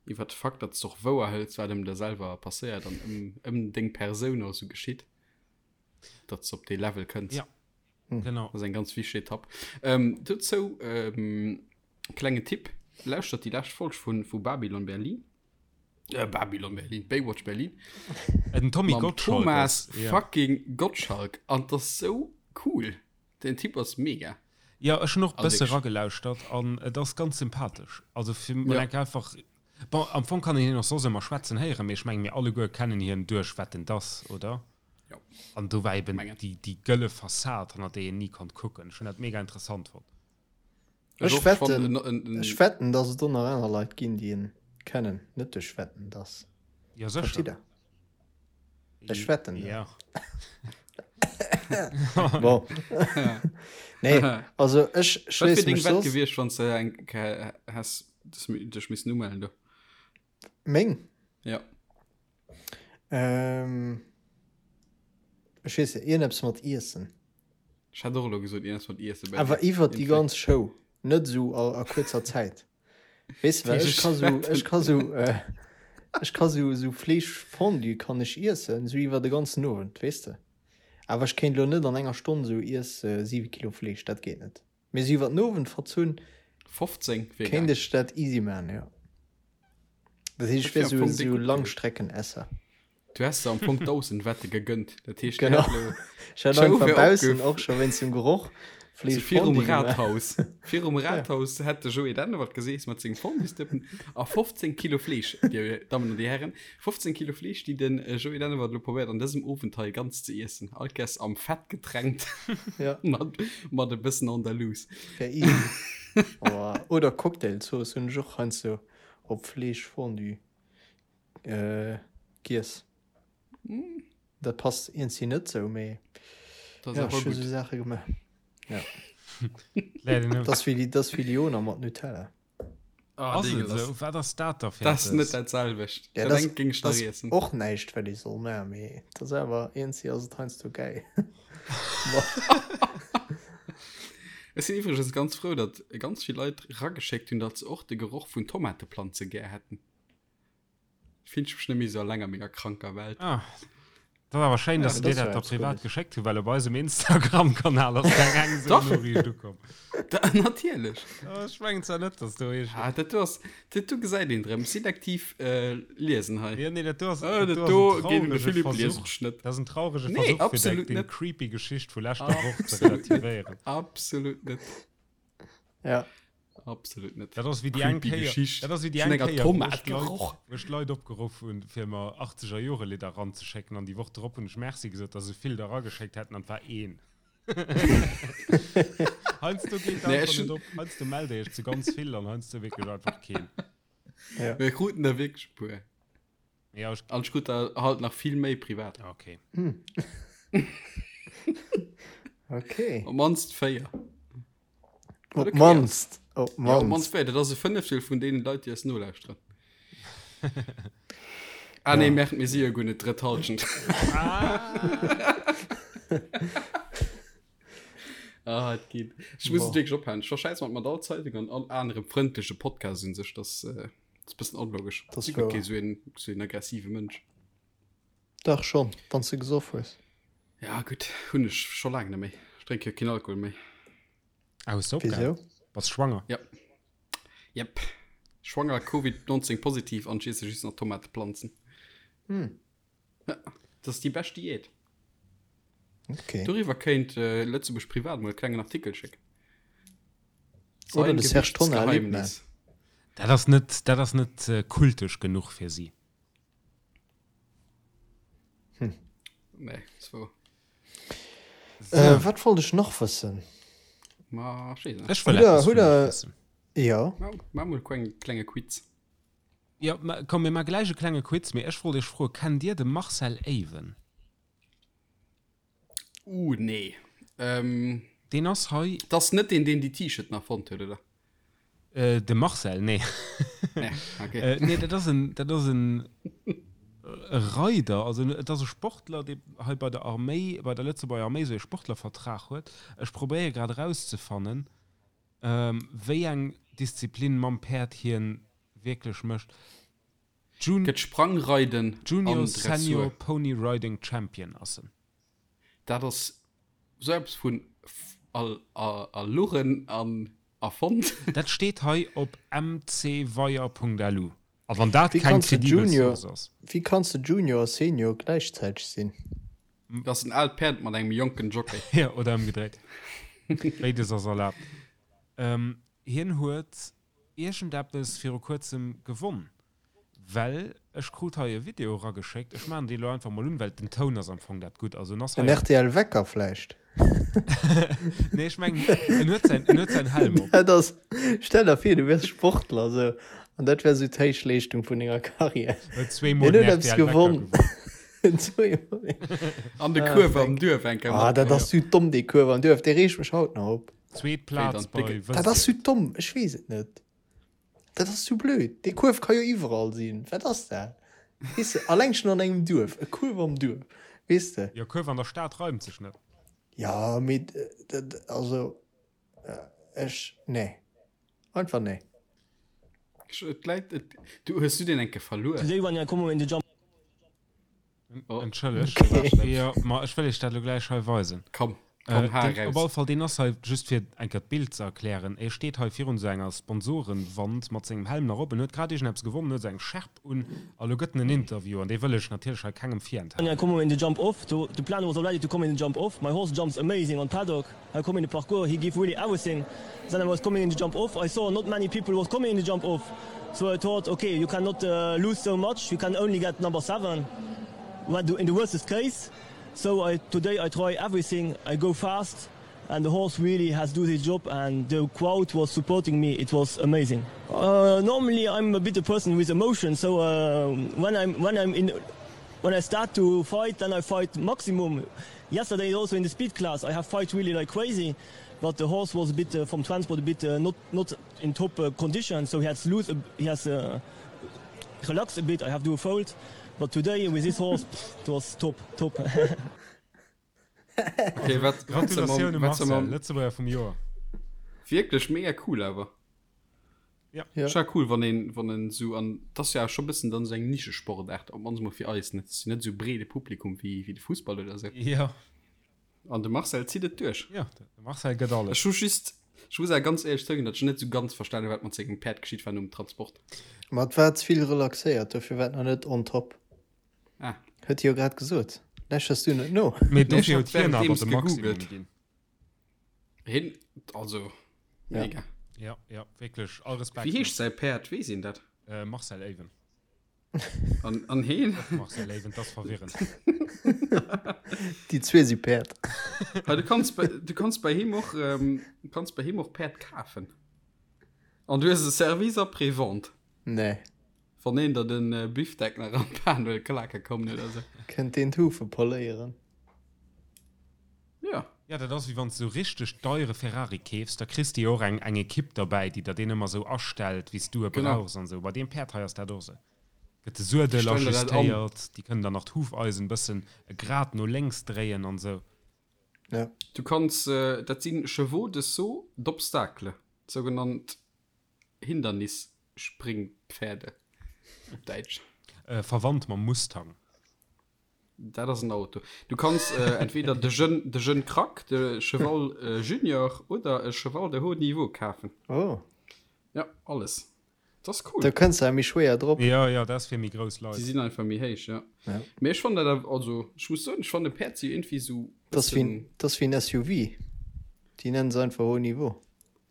iwwer de Fakt, datt s de och wouer hëls, wat ëm der selwer passéiert an ëm ëm deng Persoun och esou geschitt, datt s de op dee Level kënns. Ja, genau. Dat ass eng ganz wichteg Etapp. Ähm, dozou ähm, klengen Tipp, Lauschtert déi lescht Folg vu vu Babylon Berlin. Äh, Babylon Berlin, Baywatch Berlin. Äh, den Tommy Mam Gottschalk Thomas ass, ja. fucking Gottschalk. An das ass sou cool. Den Typ ass mega. Ja, ech hunn och Also bësse wirklich. ragelauschtert an et ass ganz sympathesch. Also fir man Ja. enk einfach bon, am Fong kann een hien och soss ëmmer schwätzen héieren, mee ech menge mir alleguer kennen hien duerch Wetten dass, oder? Ja. An do war eben Mengen. déi, déi gëlle Fassad, hannert déi een ni konnt kucken. Ech hunn dat mega interessant fonnt. Ech wetten, ech wetten, dass et do nach aner Leit ginn, déi en kennen, net duerch Wetten, dass. Ja, sécher. Verstitt Der? Ech wetten dat. Ja. Bon. Nee, also ech Wat wier schléisse deng mech Wett soss. gewiescht, wann s de eng Kéier häss dech missen umellen do? Meng? Ja. Ähm, ech weess net, iergendeppes mat Iessen. Ech hätt och elo gesot, iergendeppes mat Iessen bei Awer dir. iwwert déi Iergendwéi. ganz Show, net esou a, a kuerzer Zäit. Weess de, well ech ka sou, ech ka sou, äh, ech ka sou, sou Fleeschfondue kann ech iessen, sou iwwer de ganzen Owend, weess de. Awer ech kéint elo net an enger Stonn sou iess 7 Kilo Fleesch, dat geet net. Mee sou iwwer den Owend verzunn 15 wier kéint geil. ech dat easy man, jo. Dat heescht, ech Dat wier wier am sou, Fong déck sou gutt gewiescht. Langstreckenesser. Du häss der am Fong 1.000 Wette gegönnt. Dat heescht, du Genau. hätt elo Ech hätt d'Show einfach wär baussen opgef. och scho wéinst dem Geroch So Fleesch virum Fondue gemaach. Rathaus. Virum Ja. Rathaus hätt de Joé Dennewald geseess mat sengem Fonduesdëppen a 15 Kilo Fleesch, Dir Dammen an Dir Hären, 15 Kilo Fleesch, déi den Joé Dennewald elo probéiert an dësem Owend hei ganz ze iessen. All Kess am Fett getränkt Ja. mat, mat e bëssen Andalouse. Wär easy. Oh, oder Cocktailzooss hunn ech och heiansdo op Fleeschfondue äh, giess. Dat passt iergendwéi net sou, mee Dat ass ja, awer ech hu gutt. sou Saache gemaach. Ja. Läit een Dat ass wéi, dat ass wéi Liona mat Nutella. Ah, Ass et deegelass. esou? Wat ass dat da fir Dat ass net eppes? dat selwecht. Ja, Dat dat engt géing ech dat nach ass iessen. och näischt, wat ee soll maachen, mee dat ass awer iergendwéi ass et heiansdo gäil. Ech sinn iwwregens ganz frou, datt ganz vill Leit rageschéckt hunn, datt se och de Geroch vun Tomateplanze gär hätten. Fillen ech mech net méi sou alleng a menger kranker Welt. Ah, dat ass awer schéin, Ja, dass se dat dir ass dat jo da eppes privat Guddes. geschéckt hunn, well op eisem Instagram-Kanal ass keng eng esou Dach. Noriicht ukomm. Da, natierlech. Oh, ech mengen zwar net, dass do eescht. Ah, dat do ass, dat do gesäit een drëm. Selektiv äh, liesen hei. Ja, nee, dat do ass, Ah, dat dat do do ass en geet un de traurege Philippe, lies Versuch. ech net. Dat ass en traurege Nee, Versuch, fir deng, absolut deng net. creepy Geschicht vu leschter Woch ze Absolut net. relativéieren. Absolut net. Ja. Absolut net. Dat ass wéi déi eng Creepy Kéier, Geschicht. dat ass wéi déi Vun eng enger Kéier, wou Tomat ech d'Leit, geroch. wou ech d'Leit opgeruff hunn, fir mer 80er Jore Lidder ranzeschécken an déi Woch drop hunn ech Merci gesot, dass esou vill der rageschéckt hätten an et war een. Heiansdo geet Nee, einfach ech net hunn. op. Heiansdo mellt Dir iech zu ganz vill an heiansdo wierklech einfach keen. Ja. Mir kruten der wierklech e puer. Ja, ech. An ech krut der halt nach vill méi privat. Okay. Okay. Op mannst 4. Op Okay ass. mannst. Op Ja, op mannst mannst. 4. Dat ass e Fënneftel vun deenen Leit, déi eis nolauschteren. Ah nee, Ja. merkt mir si jo guer net d'drëtt Halschent. Ah, et geet. Ech muss et Boah. wierklech ophalen. Ech verschäiss mat mat all Zeitung an all anerem frëndleche Podcast un sech. Dat äh, ass e bëssen onlogesch. Dat ass Si guer wouer. kee sou een, sou een aggressive Mënsch. Dach schonn, wann s de gesoff hues. Ja, gutt, hunn ech scho laang net méi. Ech drénke jo keen Alkohol méi. Ah, hues de opgehal? Wisou? Bass schwanger? Ja. Jep. Schwanger, Covid 19 positiv an ech iesse just nach Tomateplanzen. Hm. Ja, dat ass déi bescht Diät. Okay. Doriwwer kéint äh, Lëtzebuerg Privat mol e klengen Artikel schécken. Oder Sein de Serge Tonnar erlebt man. Gewichtsgeheimnis. Dat ass net, dat ass net äh, kultesch genuch fir si. Hm. Nee, das war. So. Äh, wat wollt ech nach wëssen? Ma, ech weess net. Ech wëll Hutt der, eppes hutt vun iech der, wëssen. ja. Ma, ma mol kleng, klenge Quiz. Ja, ma, komm, mir ma gläich e klenge Quiz, mee ech wollt iech froen, kennt dir de Marcel Awen? Uh, nee. Ähm, Deen ass hei. Das ass net deen, deen déi T-Shirten erfonnt huet, oder? Äh, de Marcel, nee. Nee, okay. Äh, nee, dat ass en, dat ass en. E Reider, also et ass e Sportler, dee hei bei der Arméi, bei der Lëtzebuerger Arméi esou ee Sportlervertrag huet. Ech probéiere grad erauszefannen, wéi eng Disziplin mam Päerd hien wierklech mécht. Jun. Gëtt Sprangreiden Junior an Dressur. Senior Pony Riding Champion ass en. Dat ass sou eppes vun erluchen an erfonnt. Dat steet hei op mcweier.lu. A wann dat keng kredibel Source ass. Wéi kanns de Junior a Senior gläichzäiteg sinn? Dat ass en aalt Päerd mat engem jonken Jockey. Jo, oder ëmgedréit. Béides ass erlaabt. Hien huet iergendeppes viru kuerzem gewonn. Well ech krut hei e Video erageschéckt, ech maachen dee lo einfach mol un, well den Toun ass am Fong dat gutt. Also en ass hei. En rtl Wecker vläicht? Nee, ech mengen en huet säin, en huet säin Helm op. Dat ass, stell der vir du wiers Sportler esou an dat wär esou d'Héichleeschtung vun denger Karriär. Huet zweemol den rtl Wecker gewonnen. Zweemol. An de Kuerf am Duerf eng Kéier Ah, dat ass sou domm dee Kuerf am Duerf, dee reegt mech haut nach op. Zweet Plaz bei Dat ass sou domm, ech weess et net. Dat ass zu blöd. Dee Kuerf ka jo iwwerall sinn. Wat ass dat? Weess de, alleng schon an engem Duerf. E Kuerf am Duerf. Weess de? Jo, Kuerf an der Stad reimt sech net. Ja, mee dat, also, ech, nee. Einfach nee. Et läit, et, du, hues du deen eng Kéier verluer? Today when I come in the jump. Oh. Entschëlleg. Okay. Ja, ma ech wëll iech dat lo gläich hei weisen. Komm, komm, äh, den, raus. Op alle Fall, deen ass hei, just fir eng Kéier d'Bild ze erklären, e steet hei virun esou enger Sponsorenwand mat sengem Helm nach op, en huet grad iergendeppes gewonnen, huet esou eng Schärp un a lo gëtt en en Interview an dee wëll ech natierlech hei kengem virenthalen. I come in the jump off, the, the plan was already to come in the jump off, my horse jumps amazing on paddock, I come in the parcours, he give really everything, then I was coming in the jump off, I saw not many people was coming in the jump off, so I thought okay you cannot uh, lose so much, you can only get number 7 in the worstest case, so I, today I try everything, I go fast and the horse really has do his job and the crowd was supporting me, it was amazing. Uh, normally I'm a bit a person with emotion, so uh, when I'm when I'm in when I start to fight then I fight maximum Yesterday also in the speed class I have fight really like crazy, but the horse was a bit uh, from transport a bit uh, not not in top uh, condition, so he has lose a, he has uh, relaxed a bit. I have do a fold, but today with this horse pff, it was top top. Okay, wat, Gratulatioun Marcel, Lëtzebuerger vum Joer. Wierklech mega cool awer. Ja. Ja. Ist ja cool, wann een, wann en so an das ist ja schon bëssen dann so eng Nischesportaart, op mannst mol fir eis net net so breede Publikum wéi wéi de Fussball oder sou. Ja. An de Marcel zitt et duerch. Ja, de Marcel gëtt alles. Ech hu just, ech muss awer ganz éierlech zouginn, datt ech net sou ganz verstanen hu wat mat sengem Päerd geschitt war nom Transport. Ma et war ze vill relaxéiert, dofir war et nach net on top. Ah. Huet hie jo grad gesot. Läschers du net no? Mee dofir huet hien awer de Maximum ginn. Hin, also mega. Ja, ja, wierklech, all Respekt. Wéi heescht säi Päerd, weess een dat? Äh, Marcel Even. An, an heen? Och Marcel Even, dat ass verwirrend. Déi zwee si Päerd. Ha, du kanns bei, du kanns bei him och, ähm, du kanns bei him och Päerd kafen. An du hues e Service après-vente. Nee. Wann een der den äh, Bifdeck nach an d'Pan wëll klake kommen oder sou. Kënnt deen d'Hufe poléieren? Ja. Ja, dat ass wéi wann s de sou richteg deiere Ferrari keefs, da kriss de jo och eng eng Ekipp derbäi, déi der deen ëmmer sou astellt, wéi s du e brauchs an sou. Bei deem Päerd hei ass dat och sou. Gëtt de Suedel ajustéiert, déi kënnen dann nach d'Hufeisen bëssen e Grad no lénks dréien an sou. Ja. Du kanns, dat si Chevaux de saut d'obstacle, sougenannt Hindernisspringpferde op Däitsch. Verwandt mam Mustang. Dat ass en Auto. Du kanns äh, entweder de Jeune, de Jeune Crack, de Cheval äh, Junior oder e Cheval de haut niveau kafen. Oh. Ja, alles. Dat ass cool. Da kënns de méi schwéier drop. Ja, ja, dat ass fir méi grouss Leit. Déi sinn einfach méi héich, ja. Ja. Mee ech fannen dat awer, also ech muss soen, ech fannen Päerd si irgendwie sou Dat ass wéi, dat ass wéi en SUV. Déi nennen se einfach haut niveau.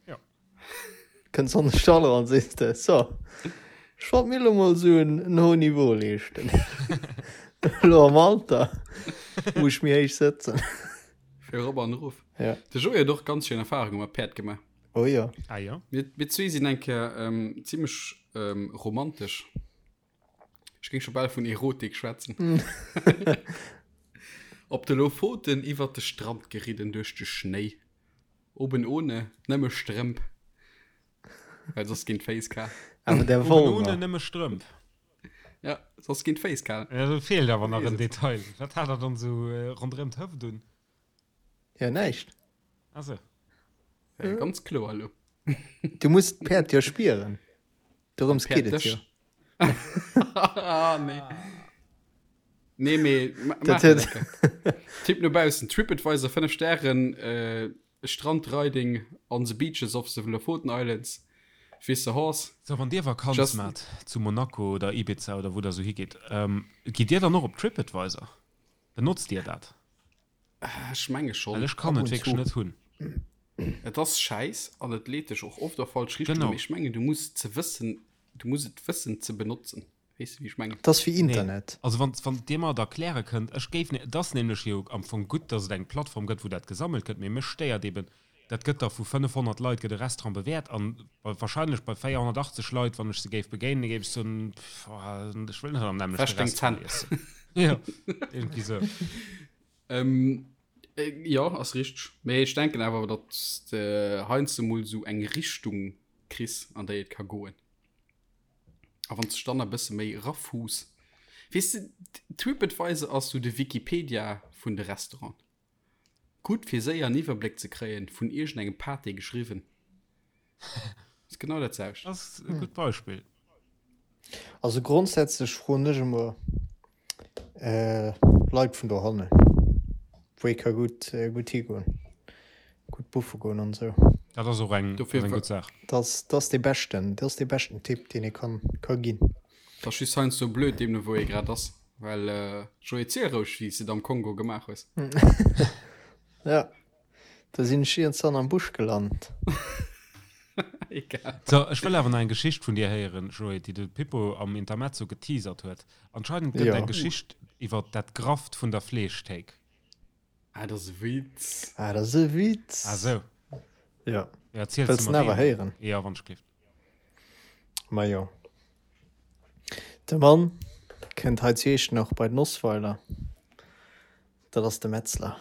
Ja. Kënns an de Stall eran, sees de, so, ech wollt mir elo mol esou en, en haut Niveau leeschten. Elo am Alter muss ech méi héich sëtzen. Fir erop an erof. Ja. De Joé huet och ganz schéin Erfarunge mat Päerd gemaach. Oh jo. Ah jo. Mir, mir zwee sinn eng Kéier ähm, zimmlech ähm, romantesch. Ech géing scho bal vun Erotik schwätzen. Op de Lofoten iwwert de Strand geridden duerch de Schnéi. Oben ohne, nëmme Strëmp. Well soss ginn d'Féiss kal. Awer der Oben ohne, Wollner. nëmme Strëmp. Ja, soss ginn d'Féiss kal. Ja, do feelt awer nach en Detail. Wat hat er dann esou ronderëm d'Hëft un? Ja, näischt. Ah sou. Ja, ganz kloer elo. Du muss d'Päerd jo spieren. Dorëms geet et jo. Ah, nee. Nee, mee ma maach dat lecker. Tipp no baussen, TripAdvisor 5 Stären, äh, Strandriding on the beaches of the Lofoten Islands with the horse. So, wann dir Vakanz Just maacht zu Monaco oder Ibiza oder wou der sou higeet, ähm, gitt dir dann och op TripAdvisor? Benotzt dir dat? Ech menge schonn. Well ech kann Ab et und wierklech zu. net hunn. Et ass schäiss an et leet dech och oft a falsch Richtunge, Genau. mee ech mengen, du muss ze wëssen, du muss et wëssen ze benotzen. Weess de wéi ech mengen? Et ass wéi Nee. Internet. Also wann, wann Dir mer et erkläre kënnt, ech géif, et ass nämlech jo am Fong gutt, datt et eng Plattform gëtt, wou dat gesammelt gëtt, mee mech stéiert eben, dat gëtt da vu 500 Leit gëtt e Restaurant bewäert an bei, wahrscheinlech bei 480 Leit, wann ech se géif begéinen, géif ech soen, pff, ech wëll net am nämmlechte Wäsch deng Restaurant Zänn. iessen. Jo, iergendwéi sou. Ähm, jo, ass richteg. Mee ech denken awer, datt s de heiansdo mol sou eng Richtung kriss, an déi et ka goen. A wann s de dann e bësse méi erafuuss, weess de, TripAdvisor ass sou de Wikipedia vun de Restauranten. Gutt fir séier en Iwwerbléck ze kréien, vun iergendengem Pâté geschriwwen. Ass genau dat selwecht. Ass e gutt Beispill. Also grondsätzlech froen ech emmer Leit vun dohannen, wou ee ka gutt gutt higoen, gutt buffe goen an esou. Dat ass och eng gutt Saach. Dat ass dee beschten, dat ass dee beschten Tipp deen ee kann ka ginn. Et ass just heiansdo blöd, deemno wou ee grad ass, well Joé, ziel roueg wéi s de et am Kongo gemaach hues. Ja, do sinn ech iergendwann am Busch gelant. Egal. So, ech wëll awer nach eng Geschicht vun dir héieren, Joé, déi de Pippo am Intermezzo geteasert huet. Anscheinend gëtt Jo. eng Geschicht iwwer dat Grafft vun der Fleeschthéik. Ah, dat ass e Witz. Ah, dat ass e Witz. Ah sou. Ja. Ja, erziels Wëlls de en mer awer deen? héieren? Jo, wann ech gleeft. Majo. De Mann kënnt hei zu Iechternach bei den Osweiler. Dat ass de Metzler.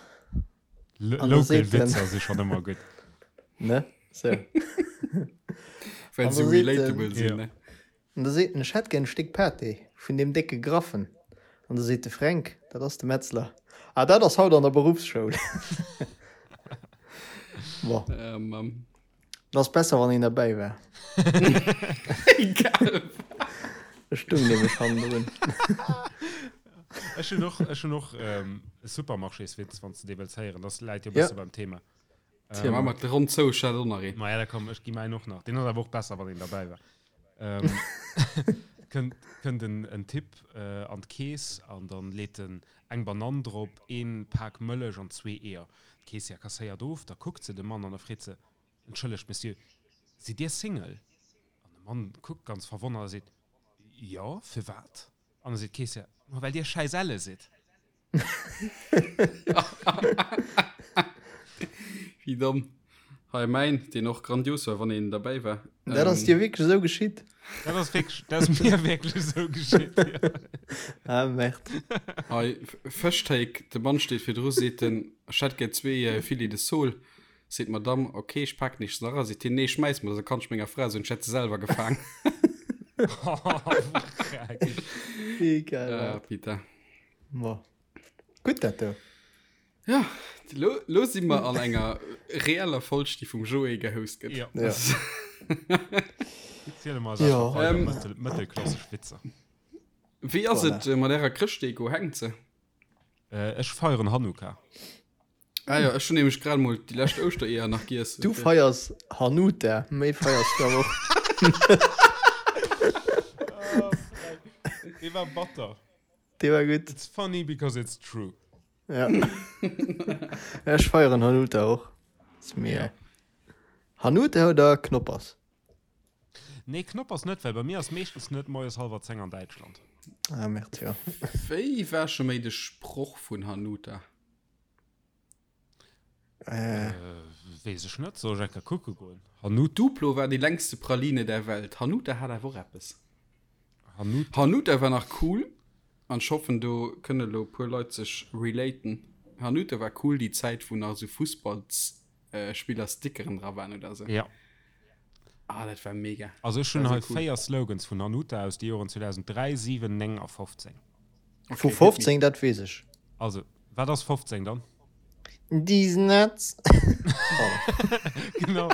L An da Local seet en, Witzer si schonn ëmmer gutt. ne? Sou. Well An se da seet en, relatable sinn, Ja. ne? an da seet en, ech hätt gär en Stéck Pâté vun deem décke Graffen. An da seet de Fränk, dat ass de Metzler, ah, dat ass haut an der Beruffsschoul. Bon. Ähm, ähm. Et ass besser wann een derbäi war. Egal. Ech stung nämlech hannendrun. Ech hunn och, ech hunn och ähm, e Supermarchéswitz, wann s de dee wëlls héieren. Das läit jo e Ja. bësse beim Thema. Tja, ähm, mat Ronn zou, ech hat och nach een. Ma ja, da komm, ech gi mäin och nach. Deen ass awer och besser, wann een derbäi war. Ähm, kënnt, kënnt en, en Typ äh, an d'Keess an dann leet en eng Banann drop, een Pak Mëllech an zwee Eeër. D'Keessière kasséiert of, da kuckt se de Mann an da freet se, Entschëllegt, Monsieur, sidd Dir Single? An de Mann kuckt ganz verwonnert a seet, Jo, firwat? An da seet d'Keessière, Ma well Dir schäiss elle sidd. Wéi domm. Hei mäin, deen och grandios war, wann een derbäi war. Dat ass dir wierklech esou geschitt? Dat ass wierklech, dat ass mir wierklech esou geschitt, jo. Ah, merde. Hei, Fëschtéik, de Mann steet virdru, seet en, ech hätt gär zwee Filets de Sole. Seet d'Madame, ok, ech paken iech se nach a. Seet hien, nee, schmäiss mer se, da kann ech menger Fra soen, ech hätt se selwer gefaang. Wéi geil Ah, dat. putain. Bon. Gutt dat do. Ja, lo, lo si mer an enger reeller Folg, déi vum Joé gehost gëtt. Ja. Ja. Ziele mer Ja. weider Ähm. mëttel, mëttelklassesch Witzer. Wéi ass Voilà. et äh, mat ärer Chrëschtdeko? Hänkt se? Äh, ech feieren Hanukkah. Ah ja, ech hunn nämlech grad mol déi lescht Ouschtereeër nach giess. Du feiers Hanuta, méi feiers du awer och. Dee war batter. Dee war gutt. It's funny because it's true. Ja. Ech feieren Hanuta och. Ist mir. Hanuta oder Knoppers? Nee, Knoppers net, well bei mir ass meeschtens net moies hallwer 10 an Däitschland. Ah, merde, ja. Wéi war scho méi de Sproch vun Hanuta? Äh. Äh, weess ech net, soll ech eng Kéier kucke goen? Hanuta. Duplo war déi längste Praline der Welt. Hanuta hat awer och eppes. Hanuta. Hanuta war nach cool an ech hoffen do kënne lo puer Leit sech relaten. Hanuta war cool déi Zäit wou nach esou Fussballsspiller Stickeren dra waren oder esou. Ja. Ah, dat war mega. Also ech hunn hei 4 Slogans vun Hanuta aus de Joren 2003, 7, 9 a 15. Vu 15, dat weess ech. Also, wat ass 15 dann? Deez nuts. Genau.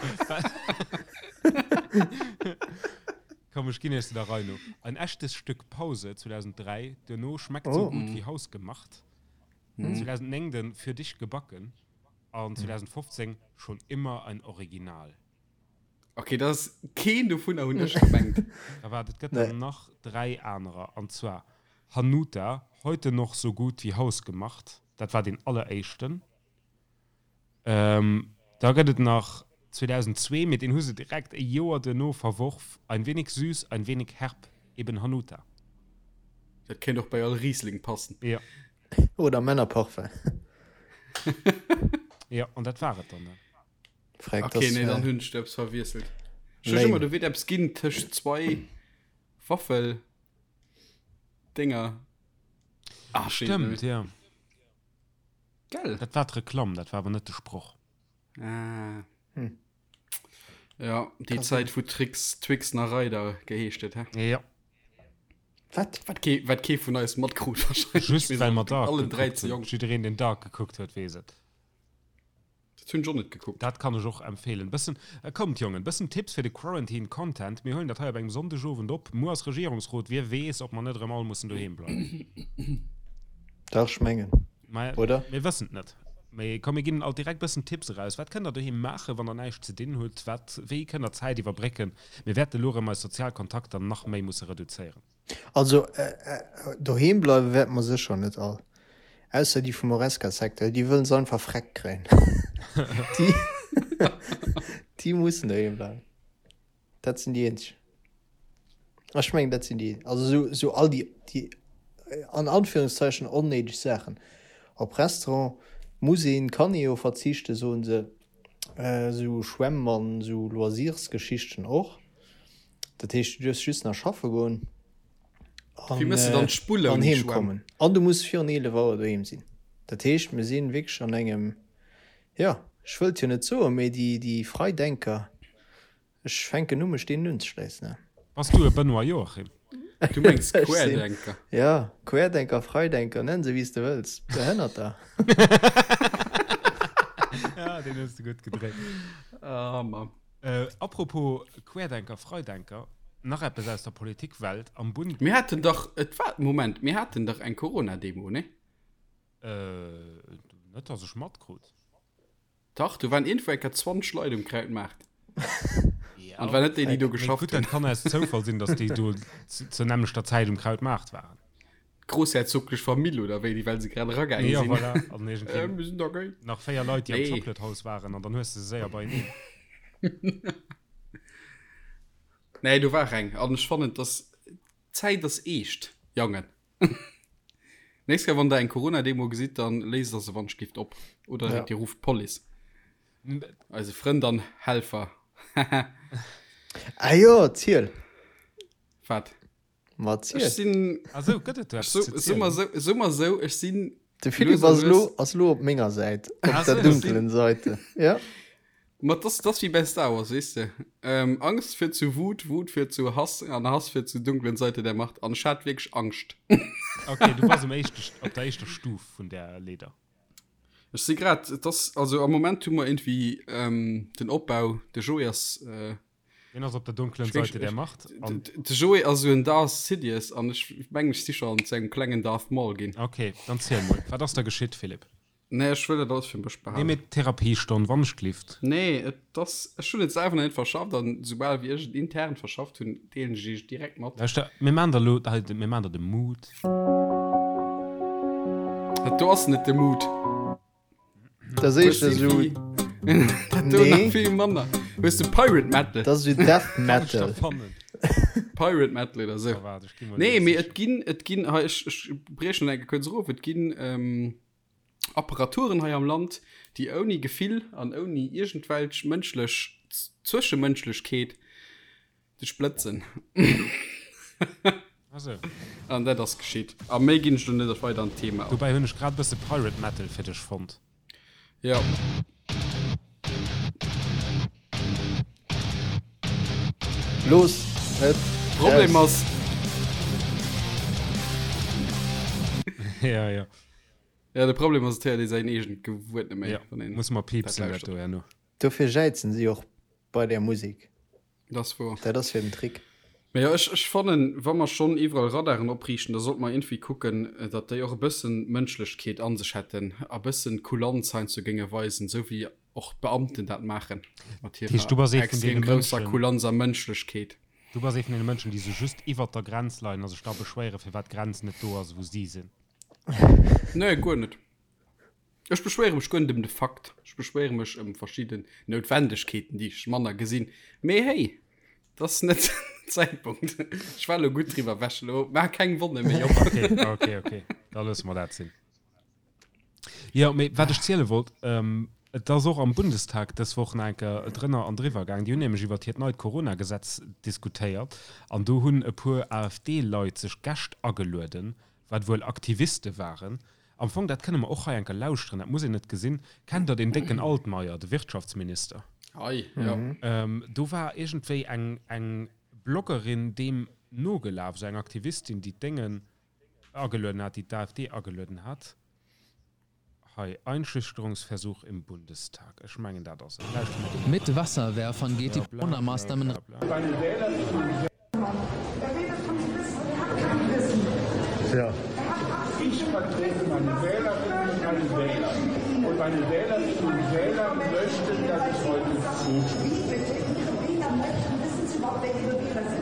Komm, ech ginn iech se der Rei no. Ein echtes Stück Pause 2003, duerno schmeckt so gut wie hausgemacht. 2009 den Für dich gebacken an 2015 schon immer ein Original. Okay, dat ass keen dovunner hunn ech gemengt. Da waart, et gëtt der nach 3 anerer, an zwar Hanuta, heute noch so gut wie hausgemacht, dat war deen alleréischten. Da gëtt et nach 2002, mee deen hu se direkt e Joer duerno verworf, Ein wenig süß, ein wenig herb, eben Hanuta. Dat kéint och bei all Riesling passen. Jo. Oder Männerparfum. Jo, an dat war et dann. Freck, okay, das, nee, dann hunn ech eppes verwiesselt. Ech hunn ëmmer, do wier eppes ginn tëscht zwei Waffel Dinger. Ah, stimmt, ja. Gell? Dat war d'Reklamm, dat war awer net de Sproch. Ah. Hm. Ja, déi Zäit wou Trix, Twix nach Reider geheescht huet, hä? Ja. Wat? Wat kee, wat kee vun eis matkrut wahrscheinlech. Just well mer Dark allen dräi ze jonk. Jiddereen, deen Dark gekuckt huet, weess et. Dat hunn ech och net gekuckt. Dat kann ech och empfehlen. Bëssen, kommt Jongen, bëssen Tipps fir de Quarantine Content. Mir huelen dat hei op engem Sonndegowend op. Muer ass Regierungsrot, wie weess, ob mer net erëm all mussen doheem bleiwen. Dach, ech mengen, Mä oder? mir wëssen et net. Mee komm, mir ginn alt direkt bëssen Tipps eraus. Wat kënnt der doheem maachen, wann der näischt ze dinn hutt? Wat, wéi kënnt der Zäit iwwerbrécken? Mir wäerte elo erëm eis sozial Kontakter nach méi musse reduzéieren. Also doheem bleiwe wäerte mer sécher net all, ausser déi vum Horesca-Secteur, déi wëllen se einfach freck kréien. Déi, déi mussen doheem bleiwen. Dat sinn déi eenzeg. Ech mengen, dat sinn déi, also sou, sou all déi, déi an Anführungszeichen onnéideg Saachen. Op Restaurant muss een, kann ee jo verzichten, soen se. Sou Schwämm an sou Loisirsgeschichten och. Dat heescht, du duerfs just nach schaffe goen an, Wéi mëss de dann d'Spull an ouni heem Schwämm? kommen. An du muss virun 11 Auer doheem sinn. Dat heescht, mir sinn wierklech an engem, jo, ech wëllt jo net soen, mee déi, déi Freidenker, ech fänken u mech deenen unzeschléissen. Bass du e Benoît Joachim? Du mengs Ech sinn, Querdenker? jo, Querdenker, Freidenker, nenn se wéi s de wëlls, Behënnerter. Ja, deen hues de gutt gedréit. Ah, Mann. Apropos Querdenker, Freidenker, nach eppes aus der Politikwelt am Bund. Mir haten dach, et war, Moment, mir haten dach eng Corona-Demo, nee? Net dass ech matkrut. Dach, do waren iergendwou eng Kéier 20 Leit um Krautmaart. An et war net déi, déi do geschafft hunn. Gutt, dat kann aus Zoufall sinn, dass déi do zur nämmlechter Zäit um Krautmaart waren. D'groussherzoglech Famill oder wéi, déi well se grad eragaange Ja, sinn. voilà. An irgendwie Äh, mir sinn da géi. nach 4 Leit, déi am Nee. Chocolate House waren, an dann hues de se séier beieneen. Nee, do war eng. An ech fannen, dass d'Zäit ass eescht, Jangen. Nächst Kéier, wann der eng Corona-Demo gesitt, dann léist der se wann ech gift op. Oder Ja. dir rufft d'Police. Eise Frënd an Helfer. Ah jo, ziel. Wat? Ma Ech ziel. sinn. Ah sou, gëtt et do eppes So, ze so mal zielen? so, so mal so, ech sinn. De Philippe lues a ass elo, lues- ass elo op menger Säit, op Ah der sou. dunkelen Seite. Ja. Ma das, das wie bei Star Wars, weess de. Ähm, Angst führt zu Wut, Wut führt zu Hass an Hass führt zu dunklen Seite der Macht. An ech hat wierklech Angscht. Okay, du bass um éischte, op der éischter Stuf vun där Leeder. Ech si grad, et ass, also am Moment hu mer irgendwie ähm, den Opbau, de Joé ass. Äh, Deen ass op der dunklen Seite der Macht. An de Joé ass esou en Darth Sidious an ech mengen ech si scho an zu engem klengen Darth Maul ginn. Ok, dann ziel mol, wat ass da geschitt, Philippe? Nee, ech wëll dat alles fir mech behalen. Nee, mee d'Therapiestonn, wann ech glift. Nee, et ass, ech hunn et selwer nach net verschafft an soubal wéi ech et intern verschafft hunn, deelen ech iech direkt mat. Lauschter, mir maan der lo hei, mir maan der de Mood. Dat do ass net de Mood. Dat ass éischter esou. Dat do nach vill manner. Hues de Pirate Metal? Dat ass esou Death Metal. Pirate Metal oder esou. Nee, mee et ginn, et ginn, hei, ech, ech briechen eng Kéier kuerz erof, et ginn ähm, Apparaturen hei am Land, déi ouni Gefill an ouni iergendwelch mënschlech Zwëschemënschlechkeet Dech blëtzen. Also. An dat ass geschitt. A méi ginn ech lo net weider an d'Thema an. Dobäi hunn ech grad e bësse Pirate Metal fir dech fonnt. Jo. Looss et Problem raus. ass. Ja, ja. Ja, de Problem ass, et héiert ee säin eegent Gewuert net méi, Ja, wann een muss mer dat piepsen dat lauschtert. do herno. Dofir jäizen si och bei där Musek. Dat ass wouer. Dat ass hiren Trick. Mä jo, ech, ech fannen, wa mer schonn iwwerall Radaren opriichten, da sollte mer iergendwéi kucken, datt déi och e bëssen Mënschlechkeet a sech hätten a bëssen Kulanz heiansdo géinge weisen, esou wéi och d'Beamten dat maachen mat Dat heescht, du bass hirer ee vun extrem deene grousser Mënschen. Kulanz a Mënschlechkeet. Du bass ee vun deene Mënschen, déi sou just iwwert der Grenz leien a sech da beschwéieren, firwat d'Grenz net do ass, wou si sinn. Nee, guer net. Ech beschwéiere mech guer net ëm de Fakt. Ech beschwéiere mech ëm verschidden Noutwendegkeeten, déi ech manner gesinn. Mee hey, dat ass net den Zäitpunkt. Ech war elo gutt driwwer ewech. Elo maach keng Wonne méi op. Okay, okay, okay. Da loosse mer dat sinn. Jo, mee wat ech ziele wollt, et ass och am Bundestag dës Woch nach eng Kéier drënner an driwwer gaang. Déi hunn nämlech iwwert hiert neit Corona-Gesetz diskutéiert an do hunn e puer AfD-Leit sech Gäscht agelueden, wat wuel Aktiviste waren. Am Fong, dat kënne mer och hei eng Kéier lauschteren, dat muss een net gesinn. Kennt Der deen décken Altmaier, de Wirtschaftsminister? Hei, jo. Do war iergendwéi eng, eng Bloggerin deem nogelaf, esou eng Aktivistin, déi d'Déngen agelueden hat, déi d'AfD agelueden hat. Hei, Einschüchterungsversuch im Bundestag. Ech mengen, dat ass et. Lauschteren mer do mol Mit eran. Wasserwerfern geht die Bla, bla, bla, Corona-Maßnahmen bla, bla. Ich vertrete meine Wählerinnen und meine Wähler. Und meine Wählerinnen und Wähler möchten, dass ich heute zustimme.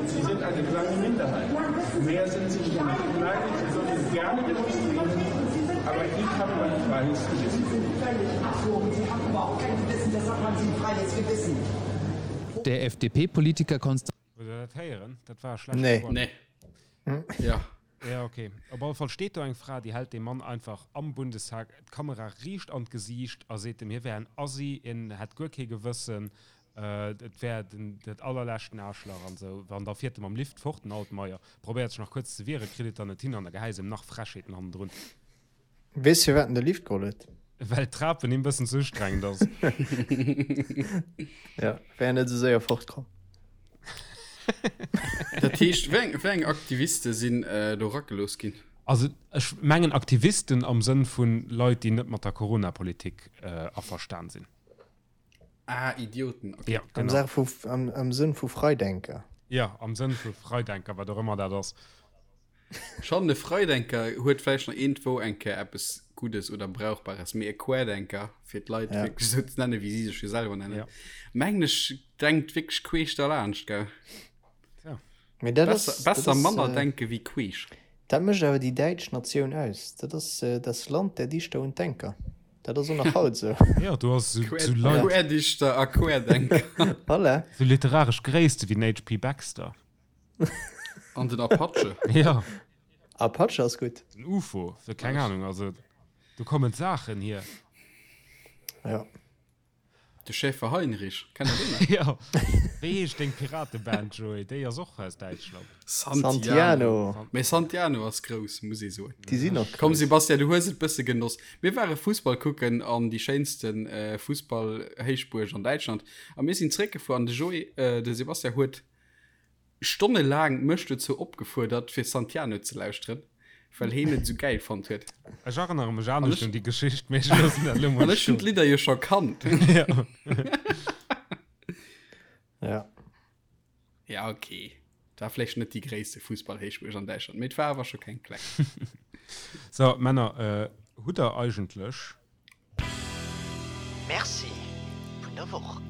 Sie sind eine kleine Minderheit. Mehr sind sie nicht. Nein, sie sollen gerne demonstrieren, aber ich habe mein freies Gewissen. Der FDP-Politiker Konstantin Hutt der dat héieren? Dat war e schlechte Nee. Choix. Nee. Ja. Ja, okay. Op alle Fall steet do eng Fra, déi hält deem Mann einfach am Bundestag d'Kamera riicht an d'Gesiicht a seet em, hie wär en Assi, hien hätt guer kee Gewëssen, et wär den, dat allerleschten Aarschlach an esou. An da fiert e mam Lift fort, den Altmaier. Probéiert sech nach kuerz ze wieren, kritt et dann net hin an da gehäis em nach Frechheeten hannendrun. Weess firwat en de Lift geholl huet? Well d'Trapen him bëssen ze ustrengend ass. Ja, wär net esou séier fortkomm. Dat heescht, wéi eng, wéi eng Aktiviste sinn do eragelooss ginn? Also ech mengen Aktivisten am Sënn vu Leit, déi net mat der Corona-Politik averstan sinn. Ah, Idioten, okay. Ja, Am genau. Saach vu, am, am Sënn vu Freidenker. Ja, am Sënn vu Freidenker, wat och ëmmer dat ass. Schonn, e Freidenker huet vläicht nach iergendwou eng Kéier eppes Guddes oder Brauchbares, mee e Querdenker, fir d'Leit Ja. wierklech esou ze nennen, wéi si sech jo selwer nennen, Ja. mengen ech, denkt wierklech queesch derlaanscht, gell? Tja. Mee dat Besser, ass, dat besser ass, manner äh, denke wéi queesch. dat mécht awer déi däitsch Natioun aus. Dat ass äh, das Land der Dichter und Denker. Dat ass och nach haut esou. Ja, du ass sou, Quer, sou Leit, Querdichter a Querdenker. Voilà. sou literaresch Gréisste wéi den HP. Baxter. An den Apache. Ja. Apache ass gutt. Den UFO, so keng Ahnung, also do kommen Saachen hier. Ja. De Schäfer Heinrich, kennt der deen nach? Ja. Wéi heescht deng Pirateband, Joé? Déi ass och aus Däitschland. Santiano. Mee Santiano ass grouss, muss ee soen. Déi sinn och Komm grouss. Sebastian, du hues et bësse genoss. Mir ware Fussball kucken an déi schéinste Fussball-Héichbuerg an Däitschland a mir sinn zréckgefuer an de Joé, de Sebastian huet Stonnelaang mech dozou opgefuerdert fir Santiano ze lauschteren, well heen et esou gäil fonnt huet. Ech erënnere mech anescht un déi Geschicht, mee ech loossen dat elo mol An ech hunn stoen. d'Lidder jo scho kannt. Ja. Ja ok, et war vläicht net déi gréisste Fussballhéichbuerg an Däitschland, mee et war awer scho keng kleng. So, Männer, hutt der eigentlech. Merci vun der Woch.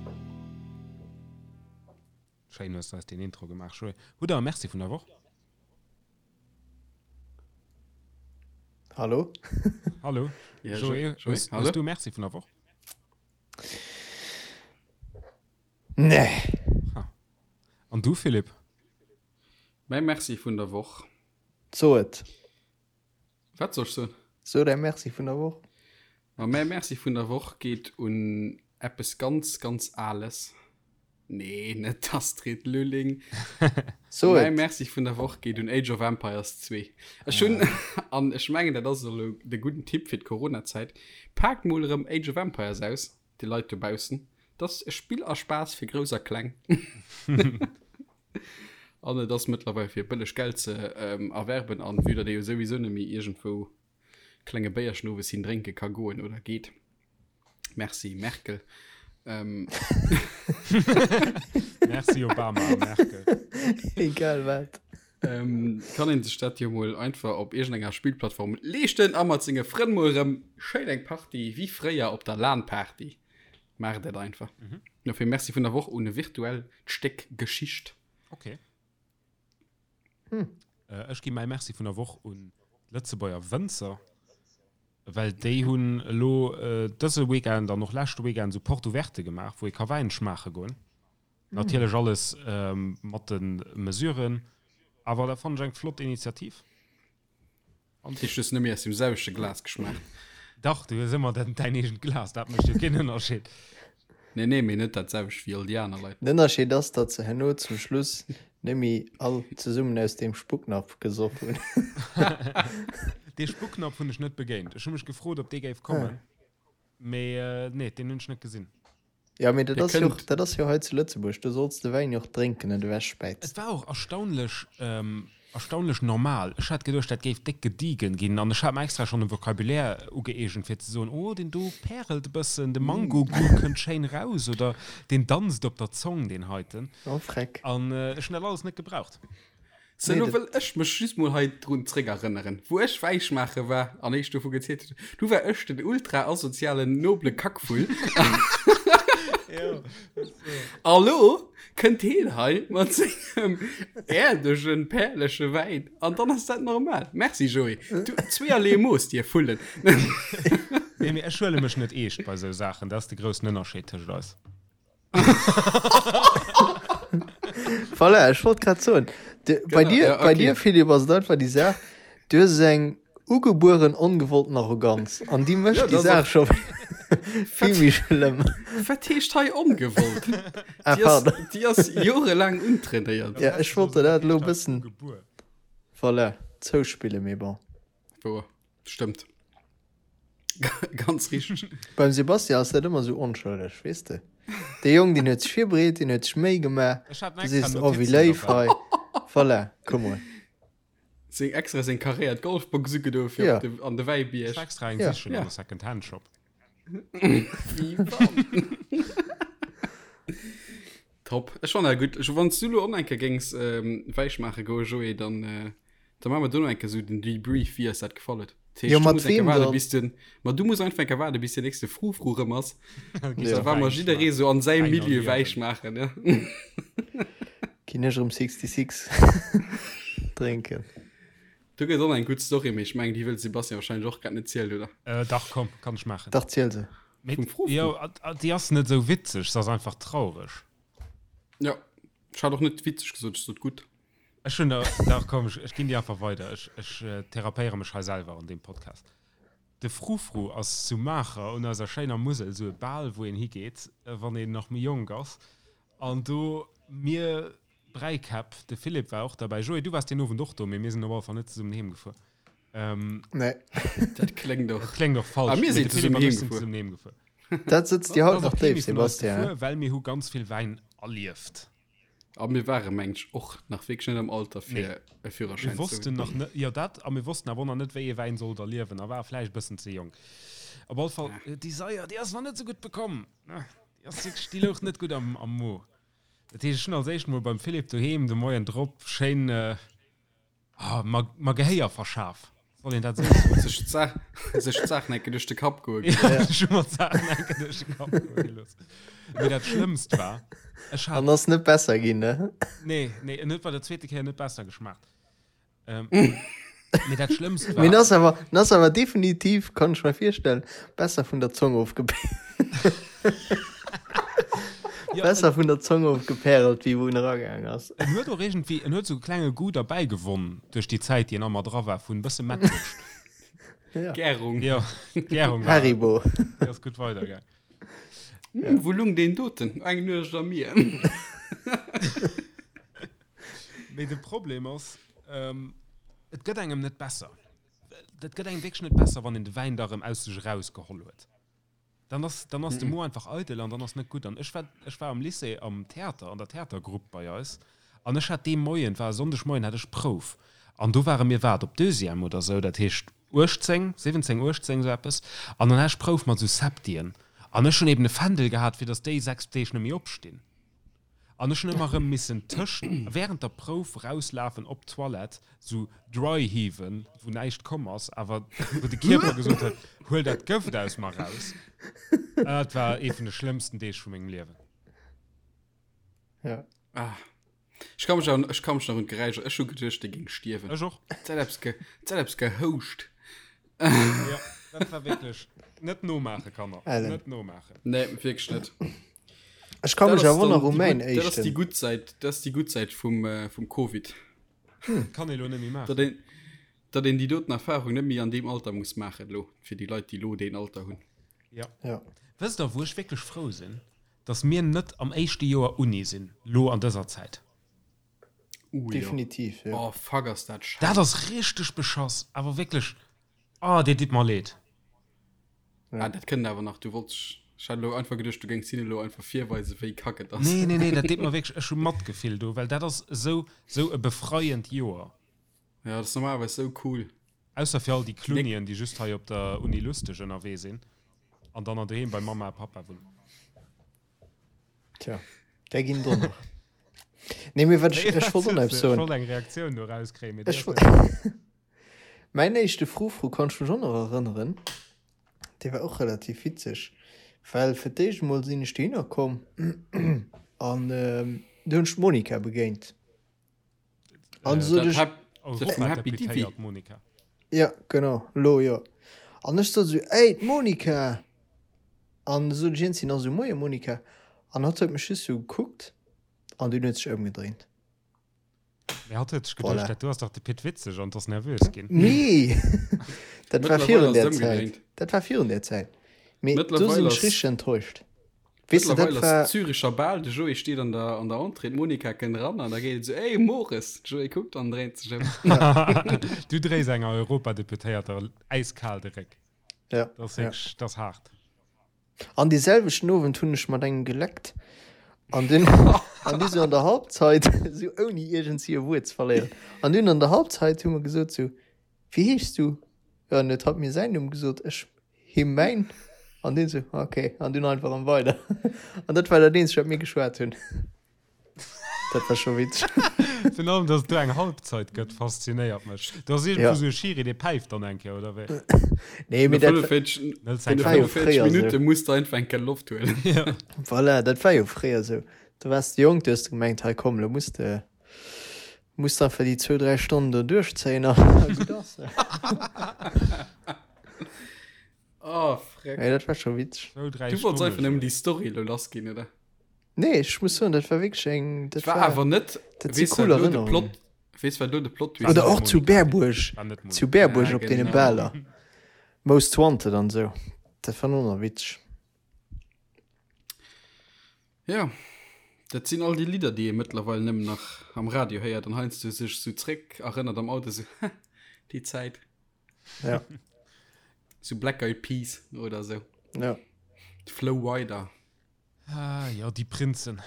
Schéin hues de eis deen Intro gemaach Joé. Hutt der e Merci vun der Woch? Hallo? Hallo? Ja, Joé, Joé, hues, hallo? hues du e Merci vun der Woch? Nee. Ha. An du Philippe? Mäi Merci vun der Woch. So et. Wat soll ech soen? So däi Merci vun der Woch. Ma mäi Merci vun der Woch geet un eppes ganz, ganz Ales. Nee, net d'Astrid Lulling. So Mäi et. Merci vun der Woch geet un Age of Empires 2. Ech hunn, an ech mengen, dat ass elo de gudden Tipp fir d'Coronazäit, Paakt mol erëm Age of Empires aus, dir Leit dobaussen. Dat ass e Spill a Spaass fir Grouss a Kleng. An et ass mëttlerweil fir bëlleg Geld ze erwerben an vue datt ee jo souwisou net méi iergendwou klenge Béierchen owes hin drénke ka goen oder geet. Merci Merkel. Ähm. Merci Obama a Merkel. Egal wat. Ähm, kann een sech dat jo mol einfach op iergendenger Spillplattform leeschten a mat senge Frënn mol erëm schéin eng Party wéi fréier op der LAN-Party. Maacht dat einfach. Mhm. Dofir Merci vun der Woch un e virtuellt Stéck Geschicht. Okay. Hm. Äh, ech gi mäi Merci vun der Woch un d'Lëtzebuerger Wënzer, well déi hunn elo äh, dëse Weekend an och leschte Weekend esou Porte ouverte gemaach, wou ee ka Wäin schmaache goen. Hm. Natierlech alles ähm, mat de Mesuren, awer dat fannen ech eng flott Initiativ. An Tisch hues net méi aus dem selwechte Glas geschmaacht. Dach, du hues ëmmer däin eegent Glas, dat mécht jo keen Ënnerscheed. Nee, nee, mee net dat selwecht wéi all déi aner Leit. Den Ënnerscheed ass, datt se herno zum Schluss net méi all zesummen aus deem Spucknapf gesoff hunn. Dee Spucknapf hunn ech net begéint. Ech hu mech gefrot, ob dee géif kommen, mee nee, deen hunn ech net gesinn. Ja, mee dat ass jo och, dat ass jo hei zu Lëtzebuerg, do solls de Wäin jo och drénken net ewechspäizen. Et war och erstaunlech, erstaunlech normal. Ech hat geduecht, dat géif déck gediegen ginn an ech hat mer extra schonn e Vocabulaire ugëeegent fir ze soen, oh deen do pärelt e bëssen, de Mango-Goût kënnt schéin raus oder deen danzt op der Zong, deen heiten. Oh freck. An ech hunn dat alles net gebraucht. Sou, lo wëll ech mech just mol hei drun zréckerënneren, wou ech Wäischmaache war an eech dovu gezielt hunn. Du war ech den ultra asozialen, noble Kackvull. A lo kënnt heen hei mat sengem äerdegen, pärleche Wäin an dann ass dat normal. Merci Joé, du, zweeërlee Mooss, dir Vullen. Nee, mee ech huele mech net eescht bei sou Saachen, dat ass de groussen Ënnerscheed tëscht eis. Voilà, ech wollt grad soen, de, bei dir, ja, okay. bei dir Philipp ass et einfach déi Saach, du hues eng ugebueren ongewollten Arroganz an déi mécht ja, déi Saach scho vill méi schlëmm. Wat heescht hei ongewollt? Ah, déi ass, déi ass jorelaang untrainéiert. Ja, ech wollt der dat elo e bëssen voilà, zouspillen, mee bon. Wouer, stëmmt. Ganz richteg. Beim Sebastian ass dat ëmmer esou onschëlleg, weess de. Dee Jong, deen huet sech virbereet, deen huet sech Méi gemaach. Ech hat Du extra sees, oh, wéi Notizen léif dobäi. hei. Voilà, come on. Seng extra seng karéiert Golfbox ugedo fir Ja. op de, an de Ech Wäibierg. war extra eng Ja. sichen Ja. an de Second-Hand-Shop. Wéi wann. Top. Ech fannen dat gutt. Ech, wann s du lo och nach eng Kéier géings ähm, Wäisch maache goe, Joé, dann, äh, Da maache mer dono eng Kéier esou den Debrief, wéi eis dat gefall huet. Dat heescht, Jo, du mat muss eng Kéier weem waarden, dann? bis den, ma du muss einfach eng Kéier waarden, bis den nächste Frufru rëm ass. Ja. Da war mer jidderee sou an säim Wäin Milieu erliewen. Wäisch maachen, ja. Ginn ech erëm 66 drénken. Do gëtt och nach eng gutt Story, mee ech mengen, déi wëll de Sebastian wahrscheinlech och grad net zielen, oder? Äh, dach, komm, kann ech maachen. Dach, ziel se. Mee, Vum Frufru? jo, a- a- déi ass net esou witzeg, se ass einfach traureg. Ja, ech hat och net witzeg gesot, ech sot gutt. Ech hunn der, dach komm, ech, ech ginn déi einfach weider. Ech, ech therapéiere mech hei selwer an deem Podcast. De Frufru ass zu Maacher un eiser schéiner Musel esou e Bal, wou een higeet, wann een nach méi jonk ass. An do, mir Bräikäpp, de Philippe war och derbäi, Joé, du waars deen Owend och do, mee mir sinn op alle Fall net zesummen heem gefuer. Ähm, Nee. Dat kléngt och. Dat kléngt och falsch. Ah, mir Mee sinn de Philippe zesummen an ech sinn heem gefuer. zesummen heem gefuer. Dat sëtzt dir haut Da ass nach och kee déif, méi vun eis Sebastian. gefuer, well mir hu ganz vill Wäin erlieft. A mir ware meng ech och nach wierklech net am Alter fir e Führerschäin Mir wossten nach net, jo dat, a mir wossten awer och nach net wéi ee Wäin sollt erliewen a ware vläicht e bëssen ze jonk. Op all Fall, déi Saier, déi ass nach net esou gutt bekomm, déi ass wierklech, déi louch net gutt am am Mo. Dat heescht, ech hunn als éischt mol beim Philippe doheem de Moien drop schéin, Ah, mer, mer Gehéier verschaf. Soll een dat esou soen? Sech d'Saach, sech d'Saachen enke duerch de Kapp goe Ja, gelooss. ech hu mer d'Saachen enke duerch de Kapp goe gelooss. Mee dat Schlëmmst war, ech hat. An ass net besser ginn, ne? Nee, nee, en huet bei der zweete Kéier net besser geschmaacht. Ähm, mee dat Schlëmmst war. Mee en ass awer, en ass awer definitiv, kann ech mer virstellen, besser vun der Zong ofge. Ja, Besser vun der Zong ofgepärelt, wéi wou en eragaang ass. En huet och iergendwéi, en huet sou e klenge Goût derbäi gewonn duerch déi Zäit, déi en ëmmer dra war, vun e bësse Mettwurscht. Ja. Gärung. Jo, d'Gärung war. Haribo. Déi ass gutt weidergaang. Hm, wou lung deen doten? Eng Nuecht am Mier. Mee de Problem ass, et gëtt engem net besser. Dat gëtt engem wierklech net besser, wann een de Wäin da rëm aus sech erausgeholl huet. Dann ass, dann ass de Mo einfach eidel an dann ass net gutt. An ech war, ech war am Lycée am Theater, an der Theatergrupp bei eis. An ech hat dee Moien, et war e Sonndegmoien, hat ech Prouf. An do ware mir, wat, op Deuxième oder sou, dat heescht 18, 17, 18, sou eppes. An dann hat ech Prouf mat sou Septien. An ech hunn eben e Fändel gehat, fir datt déi 6 Deeg net méi opstinn. An ech hunn ëmmer erëm missen tëscht, während der Prouf rauslafen op d'Toilette, sou dry heaven, wou näischt komm ass, awer wou de Kierper gesot huet, huel dat Gëft aus mer raus. Dat war ee vun de schlëmmsten Deeg vu mengem Liewen. Ja. Ah. Ech ka mech an, ech ka mech nach un d'Geräischer, ech hu geduecht, dee géing stierwen. Ech och. Et hat eppes ge, et hat eppes gehouscht. Ja, dat war wierklech net nomaachen, Kanner. Ellen. Net nomaachen. Nee, wierklech net. Ech ka mech Dat ass awer dann nach u déi mäin gutt, dat ass déi éischten. gutt Säit, dat ass déi gutt Säit vum, äh, vum Covid. Kann ee lo net méi maachen. Datt een, datt een déi doten Erfahrung net méi an deem Alter muss maachen elo, fir déi Leit, déi elo deen Alter hunn. Ja. Ja. Wësst der, wou ech wierklech frou sinn? Datt mir net am éischte Joer Uni sinn, lo an dëser Zäit. Uh, Definitiv, jo. Jo. Oh, fuck, ass dat schéin. Dat ass richteg beschass, awer wierklech, oh, dir ditt mer leed. Ja. Ah, dat kënnt awer nach. Du wollts, ech hat elo einfach geduecht, du géings hinne elo einfach virweisen, wéi kack et ass. Nee, nee, nee, dat deet mer wierklech, ech hu Matgefill do, well dat ass esou, esou e befreiend Joer. Ja, dat ass normalerweis esou cool. Ausser fir all déi Klunnien, déi just hei op der Uni lusteg ënnerwee sinn an dann an doheem bei Mamma a Pappa wunnen. Tja, där ginn do nach. Nee, mee wat ech, ech wollt och nach eppes soen. Ech wollt eng Reaktioun do rauskréien, mee déi Ech ass net. Mäin éischte Frufru kann ech mech och nach erënneren. Dee war och relativ witzeg, well fir d'éischt emol sinn ech dohinner komm an du hunn ech d'Monica begéint. An Äh, sot Dat ech, Hap- dat vum Happy Divi. Europadeputéiert Monica. ja genau, lo jo. An ech sot esou, Ey, d'Monica! An sot ech iergendwéi nach esou, Moie Monica. An hatt huet mech just esou gekuckt an dunn huet sech ëmgedréint. Mee hatt huet sech geduecht, Voilà. dat do ass dach de Pit Witzeg an ass nervös ginn. Nee, dat war Mëttlerweil virun ass där et Zäit. ëmgedréint. Dat war virun där Zäit. Mee do Mëttlerweil sinn ech ass- richteg enttäuscht. Weess de, dat Mëttlerweil ass war. Züricher Bal, de Joé steet an der, an der Entrée, d'Monica kënnt eran an da geet et esou, Ey, Mores! De Joé kuckt an dréint sech ëm. Du dréis enger Europadeputéierter äiskal de Réck. Ja, Dat ass ja. wierklech, dat ass haart. An dee selwechten Owend hunn ech mat engem geleckt an dunn an du sou an der Halbzeit sou ouni iergendwéi e Wuert ze verléieren an dunn an der Halbzeit hu mer gesot sou, Wéi heeschs du? Jo, an huet hatt mir säin Numm gesot, ech him mäin an deen sou, ok, an dunn einfach erëm weider. An dat war dat eenzegt wat mir geschwat hunn. Dat war scho witzeg. Virun allem, dass et do eng Halbzeit gëtt, faszinéiert mech. Do ass iergendwou Ja. esou e Schiri, dee päift dann eng Kéier, oder wéi? Nee, mee No dat, 45, Net no war jo 45 fréier sou. Minutte muss de einfach eng Kéier Loft huelen. Ja. Voilà, dat war jo fréier sou. Du waars jonk, du hues gemengt, hei komm, lo muss de, muss de einfach déi zwou, dräi Stonnen do duerchzéien a gutt ass. Oh, freck. Mee dat war scho witzeg. Zwou, dräi Du wollts Stonne einfach nëmmen scho. déi Story elo lass ginn, oder? Nee, ech muss soen, dat war wierklech eng, dat War war, awer net, dat si weess cool wat elo de Erënnerungen. Plot, weess wat elo de Plot Twist Oder ass? och zu Berbuerg, War net zu Monika. Berbuerg Ja, op deene genau. Baler. Most Wanted an esou. Dat war och nach witzeg. Ja, dat sinn all déi Lidder, déi ee mëttlerweil nëmmen nach am Radio héiert an heiansdo sech sou zréck erënnert am Auto, sou, ha, déi Zäit. Ja. Sou Black Eyed Peas oder sou. Ja. Flo Rida. Ah, jo, déi Prinzen.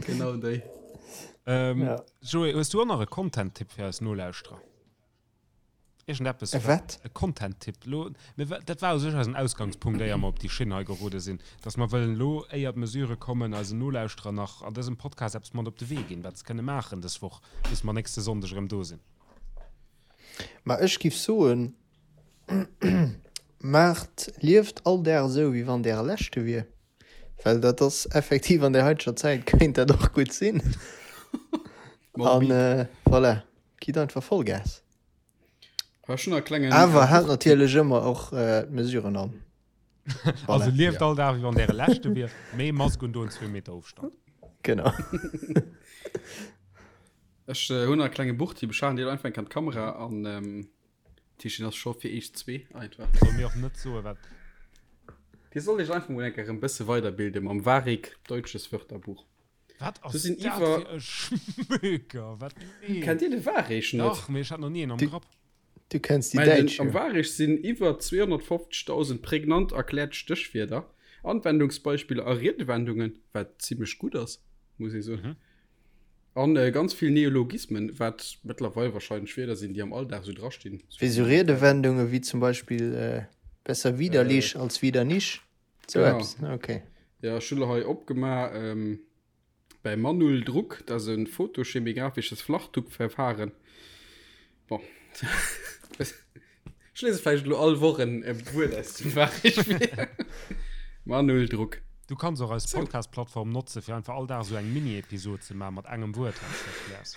Genau déi. Ähm, Ja. Joé, hues du och nach e Content-Tipp fir eis Nolauschterer? Iergendeppes, E wat? E Content-Tipp. Lo, mir, dat war u sech eisen Ausgangspunkt, éier mer op déi Schinn hei gerode sinn, dass mer wëllen elo, éier d'Mesurë kommen, eisen Nolauschterer nach an dësem Podcast eppes mat op de Wee ginn, wat se kënne maachen dës Woch, bis mer nächste Sonndeg erëm do sinn. Ma ech giff soen, Maacht, lieft all Dag esou, wéi wann däre leschte wier. Well dat ass effektiv an der haiteger Zäit kéint dat och gutt sinn. An voilà, gitt einfach Vollgas. Awer haalt natierlech ëmmer och d'Mesuren an. Also lieft all Dag, wéi wann däre leschte wier, mee Mask un doen, zwee Meter Ofstand. Genau. Ech hunn nach e klenge Buchtipp, ech halen dir einfach eng Kéier an d'Kamera an Tischchen ass scho fir eech zwee einfach. Soll mir och net soen, wat. Dir sollt iech einfach mol eng Kéier e bësse weiderbilde mam Varik Deutsches Wörterbuch. Wat ass Do sinn dat iwwer. fir e Schmöker? Wat? Nee. Kennt Dir de Varik net? Dach, mee ech hat nach ni een am Grapp. Du kenns déi Mä den, Däitsch am jo. Varik sinn iwwer 250.000 prägnant erkläert Stéchwierder, Anwendungsbeispiller a Riedewendungen, wat zimmlech gutt ass. Muss ee soen. An ganz vill Neologismen, wat mëttlerweil wahrscheinlech Wierder sinn, déi am Alldag esou drastinn. Wéi sou Riedewendunge wéi zum Beispill besser widerlich als wieder nicht. Sou eppes, okay. Jo, ech hunn elo hei opgemaach bei Manul Druck, dat ass e photochemigraphisches Flachdruckverfahren. Bon. Ech lese vläicht elo all Woch en Wuert aus dem Fach. Manuel Druck. Du kanns och eis Podcast-Plattform notze fir einfach all Dag esou eng Mini-Episod ze maachen mat engem Wuert, wann s de erkläers.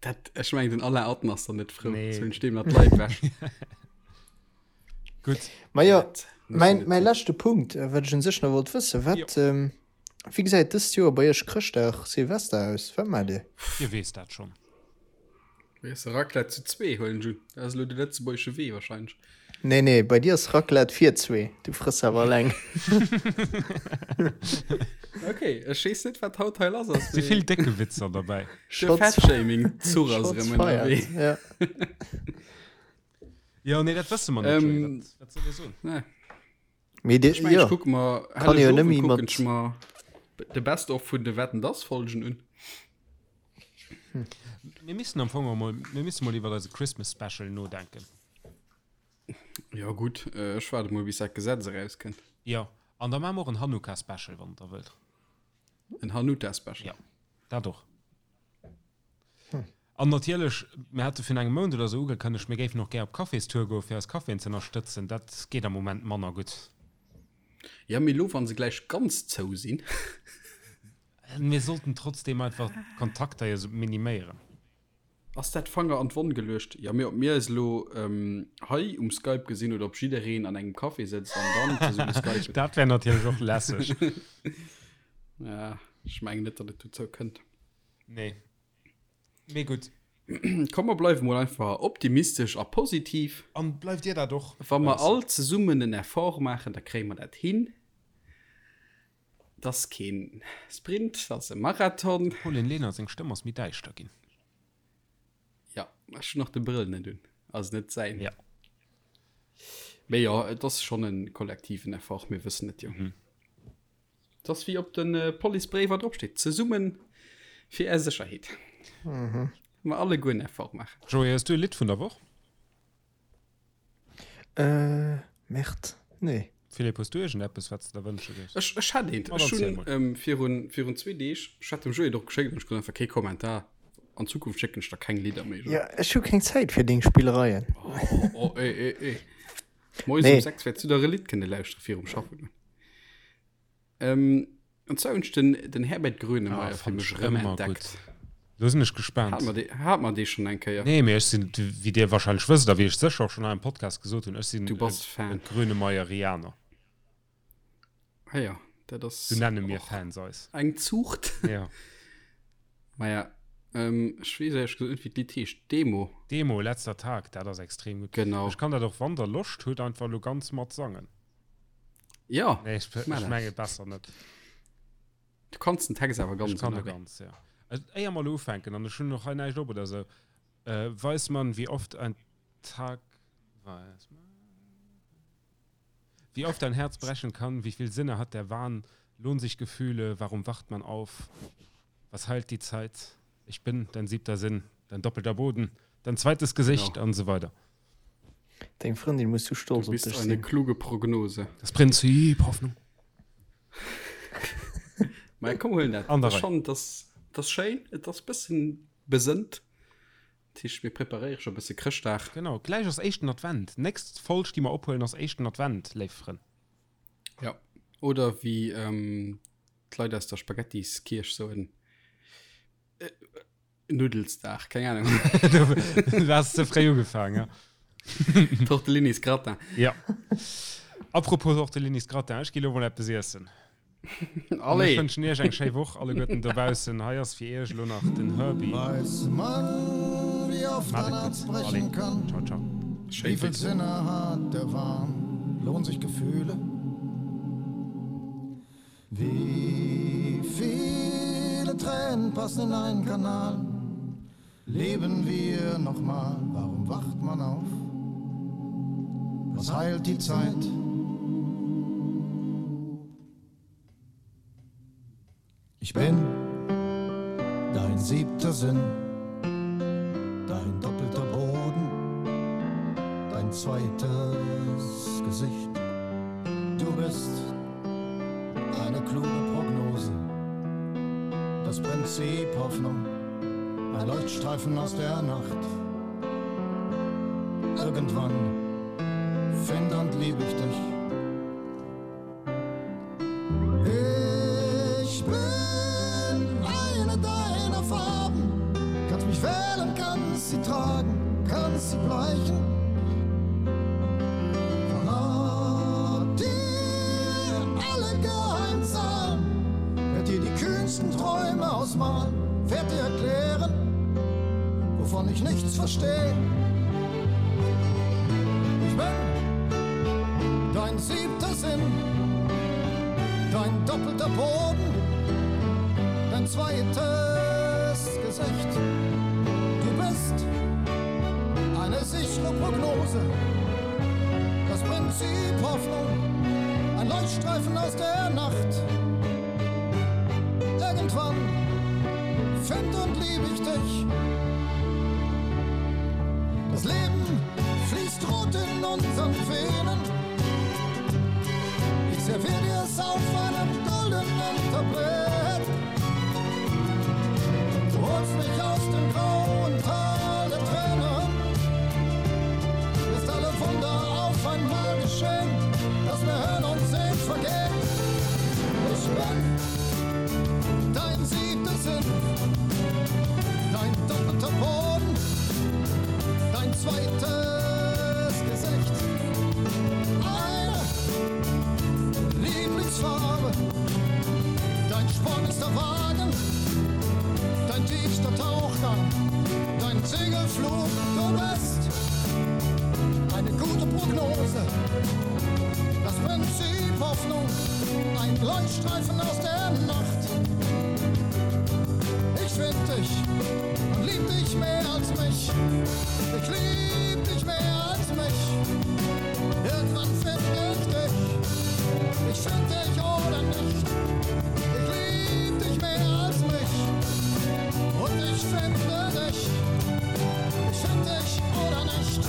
Dat, ech mengen, den Alain Atten ass dann net frou. Nee. Zwou stinn mat Leit wech. Gutt. Ma jo, mäin, mäi leschte Punkt, wat ech un sech nach wollt wëssen, wat, wéi gesäit dëst Joer bei iech Chrëschtdag, Silvester aus? Wat maacht dir? Dir weess dat schonn. Mir esse Raclette zu zwee, huelen ech un. Dat ass elo de lëtzebuergesche Wee wahrscheinlech. Nee, nee, bei dir ass Raclette fir zwee. Du frëss awer eleng. Okay, ech weess net, wat haut hei lass ass. Si vill décke Witzer derbäi. De Fat-Shaming-Zuch ass erëm ënnerwee. Ja. Jo, nee, dat wësse mer net, Joé. Wat, wat soll ee soen? Nee. Mee de, Ech mengen, jo, ech kucke mer kann jo Helleg nëmme Owend mat. kucken ech mer de Best of vun de Wetten dass Folgen un. Mir missten am Fong och mol, mir misste mol iwwer eise Christmas Special nodenken. Jo gutt, ech waarde mol bis dat Gesetz erauskënnt. Jo, an da maache mer och en Hanukkah Special, wann der wëllt. En Hanuta Special. Jo, dat och. An natierlech, mir hate virun engem Mount oder esou ugekënnegt, mir géifen och gär op Caféstour goen, fir eis Caféen ze ënnerstëtzen. Dat geet am Moment manner gutt. Jo, mee elo, wa se gläich ganz zou sinn. Mir sollten trotzdeem einfach d'Kontakter jo miniméieren. Ass dat Fanger an d'Wonn geluecht? Jo, mee ob mir eis elo hei um Skype gesinn oder ob jiddereen an engem Café sëtzt an dann zesumme skypen. Dat wär natierlech och lässeg. Ja, ech mengen net, datt et dozou kënnt. Nee. Mee gutt. Komm, mer bleiwe mol einfach optimistesch a positiv. An bleift dir dat och? Wa mer all zesummen en Effort maachen, da kréie mer dat hin. Et ass keen Sprint, et ass e Marathon. Dem Pauline Lenert seng Stëmm ass méi däischter ginn. Ja, ech hunn och de Brëll net un, also net säin. Ja. Mee jo, et ass schonn e kollektiven Effort, mir wëssen et jo. Et ass wéi op de Policebréiwer drop steet, Zesummen fir är Sécherheet. Mer alleguer en Effort maachen. Joé, hues du e Lidd vun der Woch? Äh, Merde, nee. Philippe, hues du iergendeppes, wat s de der wënsche géifs? Ech, ech hätt eent. Ma dann Ech ziel hunn mol. ähm, virun, virun zwee Deeg, ech hat dem Joé et och geschéckt an ech krut einfach kee Kommentar. An Zukunft schécken ech der keng Lidder méi, Joé. Ja, ech hu keng Zäit fir deng Spillereien. Oh, oh, eh, eh, eh. Moies Nee. um 6 wäerts du der e Lidd kënne lauschtere virum Schaffen goen. Ähm, an zwar hunn ech den, den Herbert Grönemeyer Ah, fir fand mech ech erëm ëmmer entdeckt. gutt. Lo sinn ech gespaant. Hat mer dee, hat mer dee schonn eng Kéier? Nee, mee ech sinn, wéi dir wahrscheinlech wësst a wéi ech sécher och schonn hei am Podcast gesot hunn, ech sinn Du bass e Fan. Grönemeyerianer. Ah ja, dat ass Sou nenne mir och Fans eis. eng Zuucht. Ja. Maja, ähm, ech weess éierlech gesot net, wéi d'Lidd heescht. Demo. Demo, Letzter Tag, dat ass extrem gutt. Genau. Ech kann dat och, wann der Loscht hutt, einfach elo ganz mat sangen. Ja, Nee, ech, mach ech dat. menge besser net. Du kanns den Text awer ganz Ech kann de ënnerwee. ganz, ja. Also, éier mer elo ufänken, an ech hunn och hei näischt op oder sou, äh, weiß man, wie oft ein Tag, weiß man, wie oft ein Herz brechen kann, wie viel Sinne hat der Wahn, lohnen sich Gefühle, warum wacht man auf, was heilt die Zeit, ich bin dein siebter Sinn, dein doppelter Boden, dein zweites Gesicht Genau. an so weiter. Deng Frëndin muss sou Du stolz op bist dech eine sinn. kluge Prognose. Das Prinzip Hoffnung. Mä komm, huelen dat. An der Ech Rei. fannen, dass das schéin, et ass bëssen besënnt. Dat heescht, mir preparéiere scho bësse Chrëschtdag. Genau, gläich ass éischten Advent. Nächst Folg, déi mer ophuelen, ass éischten Advent, léif Frënn. Ja. Oder wéi ähm, d'Leit aus der Spaghettiskierch soen, äh, Nuddelsdag, keng Ahnung. Du has ze fréi ugefaangen, ja. Tortellinis Gratin. Ja. Apropos Tortellinis Gratin, ech gi lo mol eppes iessen. An ech Allez! wënschen iech eng schéi Woch alleguerten dobaussen. Hei ass fir iech elo nach den Herbie. Weiß man, wie oft Macht ein et Herz gutt. brechen Allez, kann? ciao, ciao. Schéi Wie viel Witz. Sinne hat der Wahn? Lohnen sich Gefühle? Wie viele Tränen passen in einen Kanal? Leben wir nochmal? Warum wacht man auf? Was heilt die Zeit? Ich bin. siebter Sinn, dein doppelter Boden, dein zweites Gesicht. Du bist eine kluge Prognose, das Prinzip Hoffnung, ein Leuchtstreifen aus der Nacht. Irgendwann find und lieb ich dich. Ich bin eine deiner Farben, kannst mich wählen, kannst sie tragen, kannst sie bleichen. Verrat dir alle Geheimzahlen, werd dir die kühnsten Träume ausmalen, werd dir erklären, wovon ich nichts verstehe. Ich bin dein siebter Sinn, dein doppelter Boden, dein zweites Gesicht. Du bist eine sichere Prognose, das Prinzip Hoffnung, ein Leuchtstreifen aus der Nacht. Irgendwann find und lieb ich dich. Das Leben fließt rot in unseren Venen. Ich servier dir es auf einem goldenen Tablett. Du holst mich aus dem grauen Tal der Tränen. Lässt alle Wunder auf einmal geschehen, dass mir Hören und Sehen vergeht. Ich bin dein siebter Sinn, dein doppelter Boden, dein zweites Gesicht. Eine Lieblingsfarbe, dein sportlichster Wagen, dein tiefster Tauchgang, dein Segelflug, du bist eine gute Prognose. Das Prinzip Hoffnung, ein Leuchtstreifen aus der Nacht. Ich find dich und lieb dich mehr als mich. Ich lieb dich mehr als mich. Irgendwann find ich dich. Ich find dich oder nicht. Ich lieb dich mehr als mich. Und ich finde dich. Ich find dich oder nicht.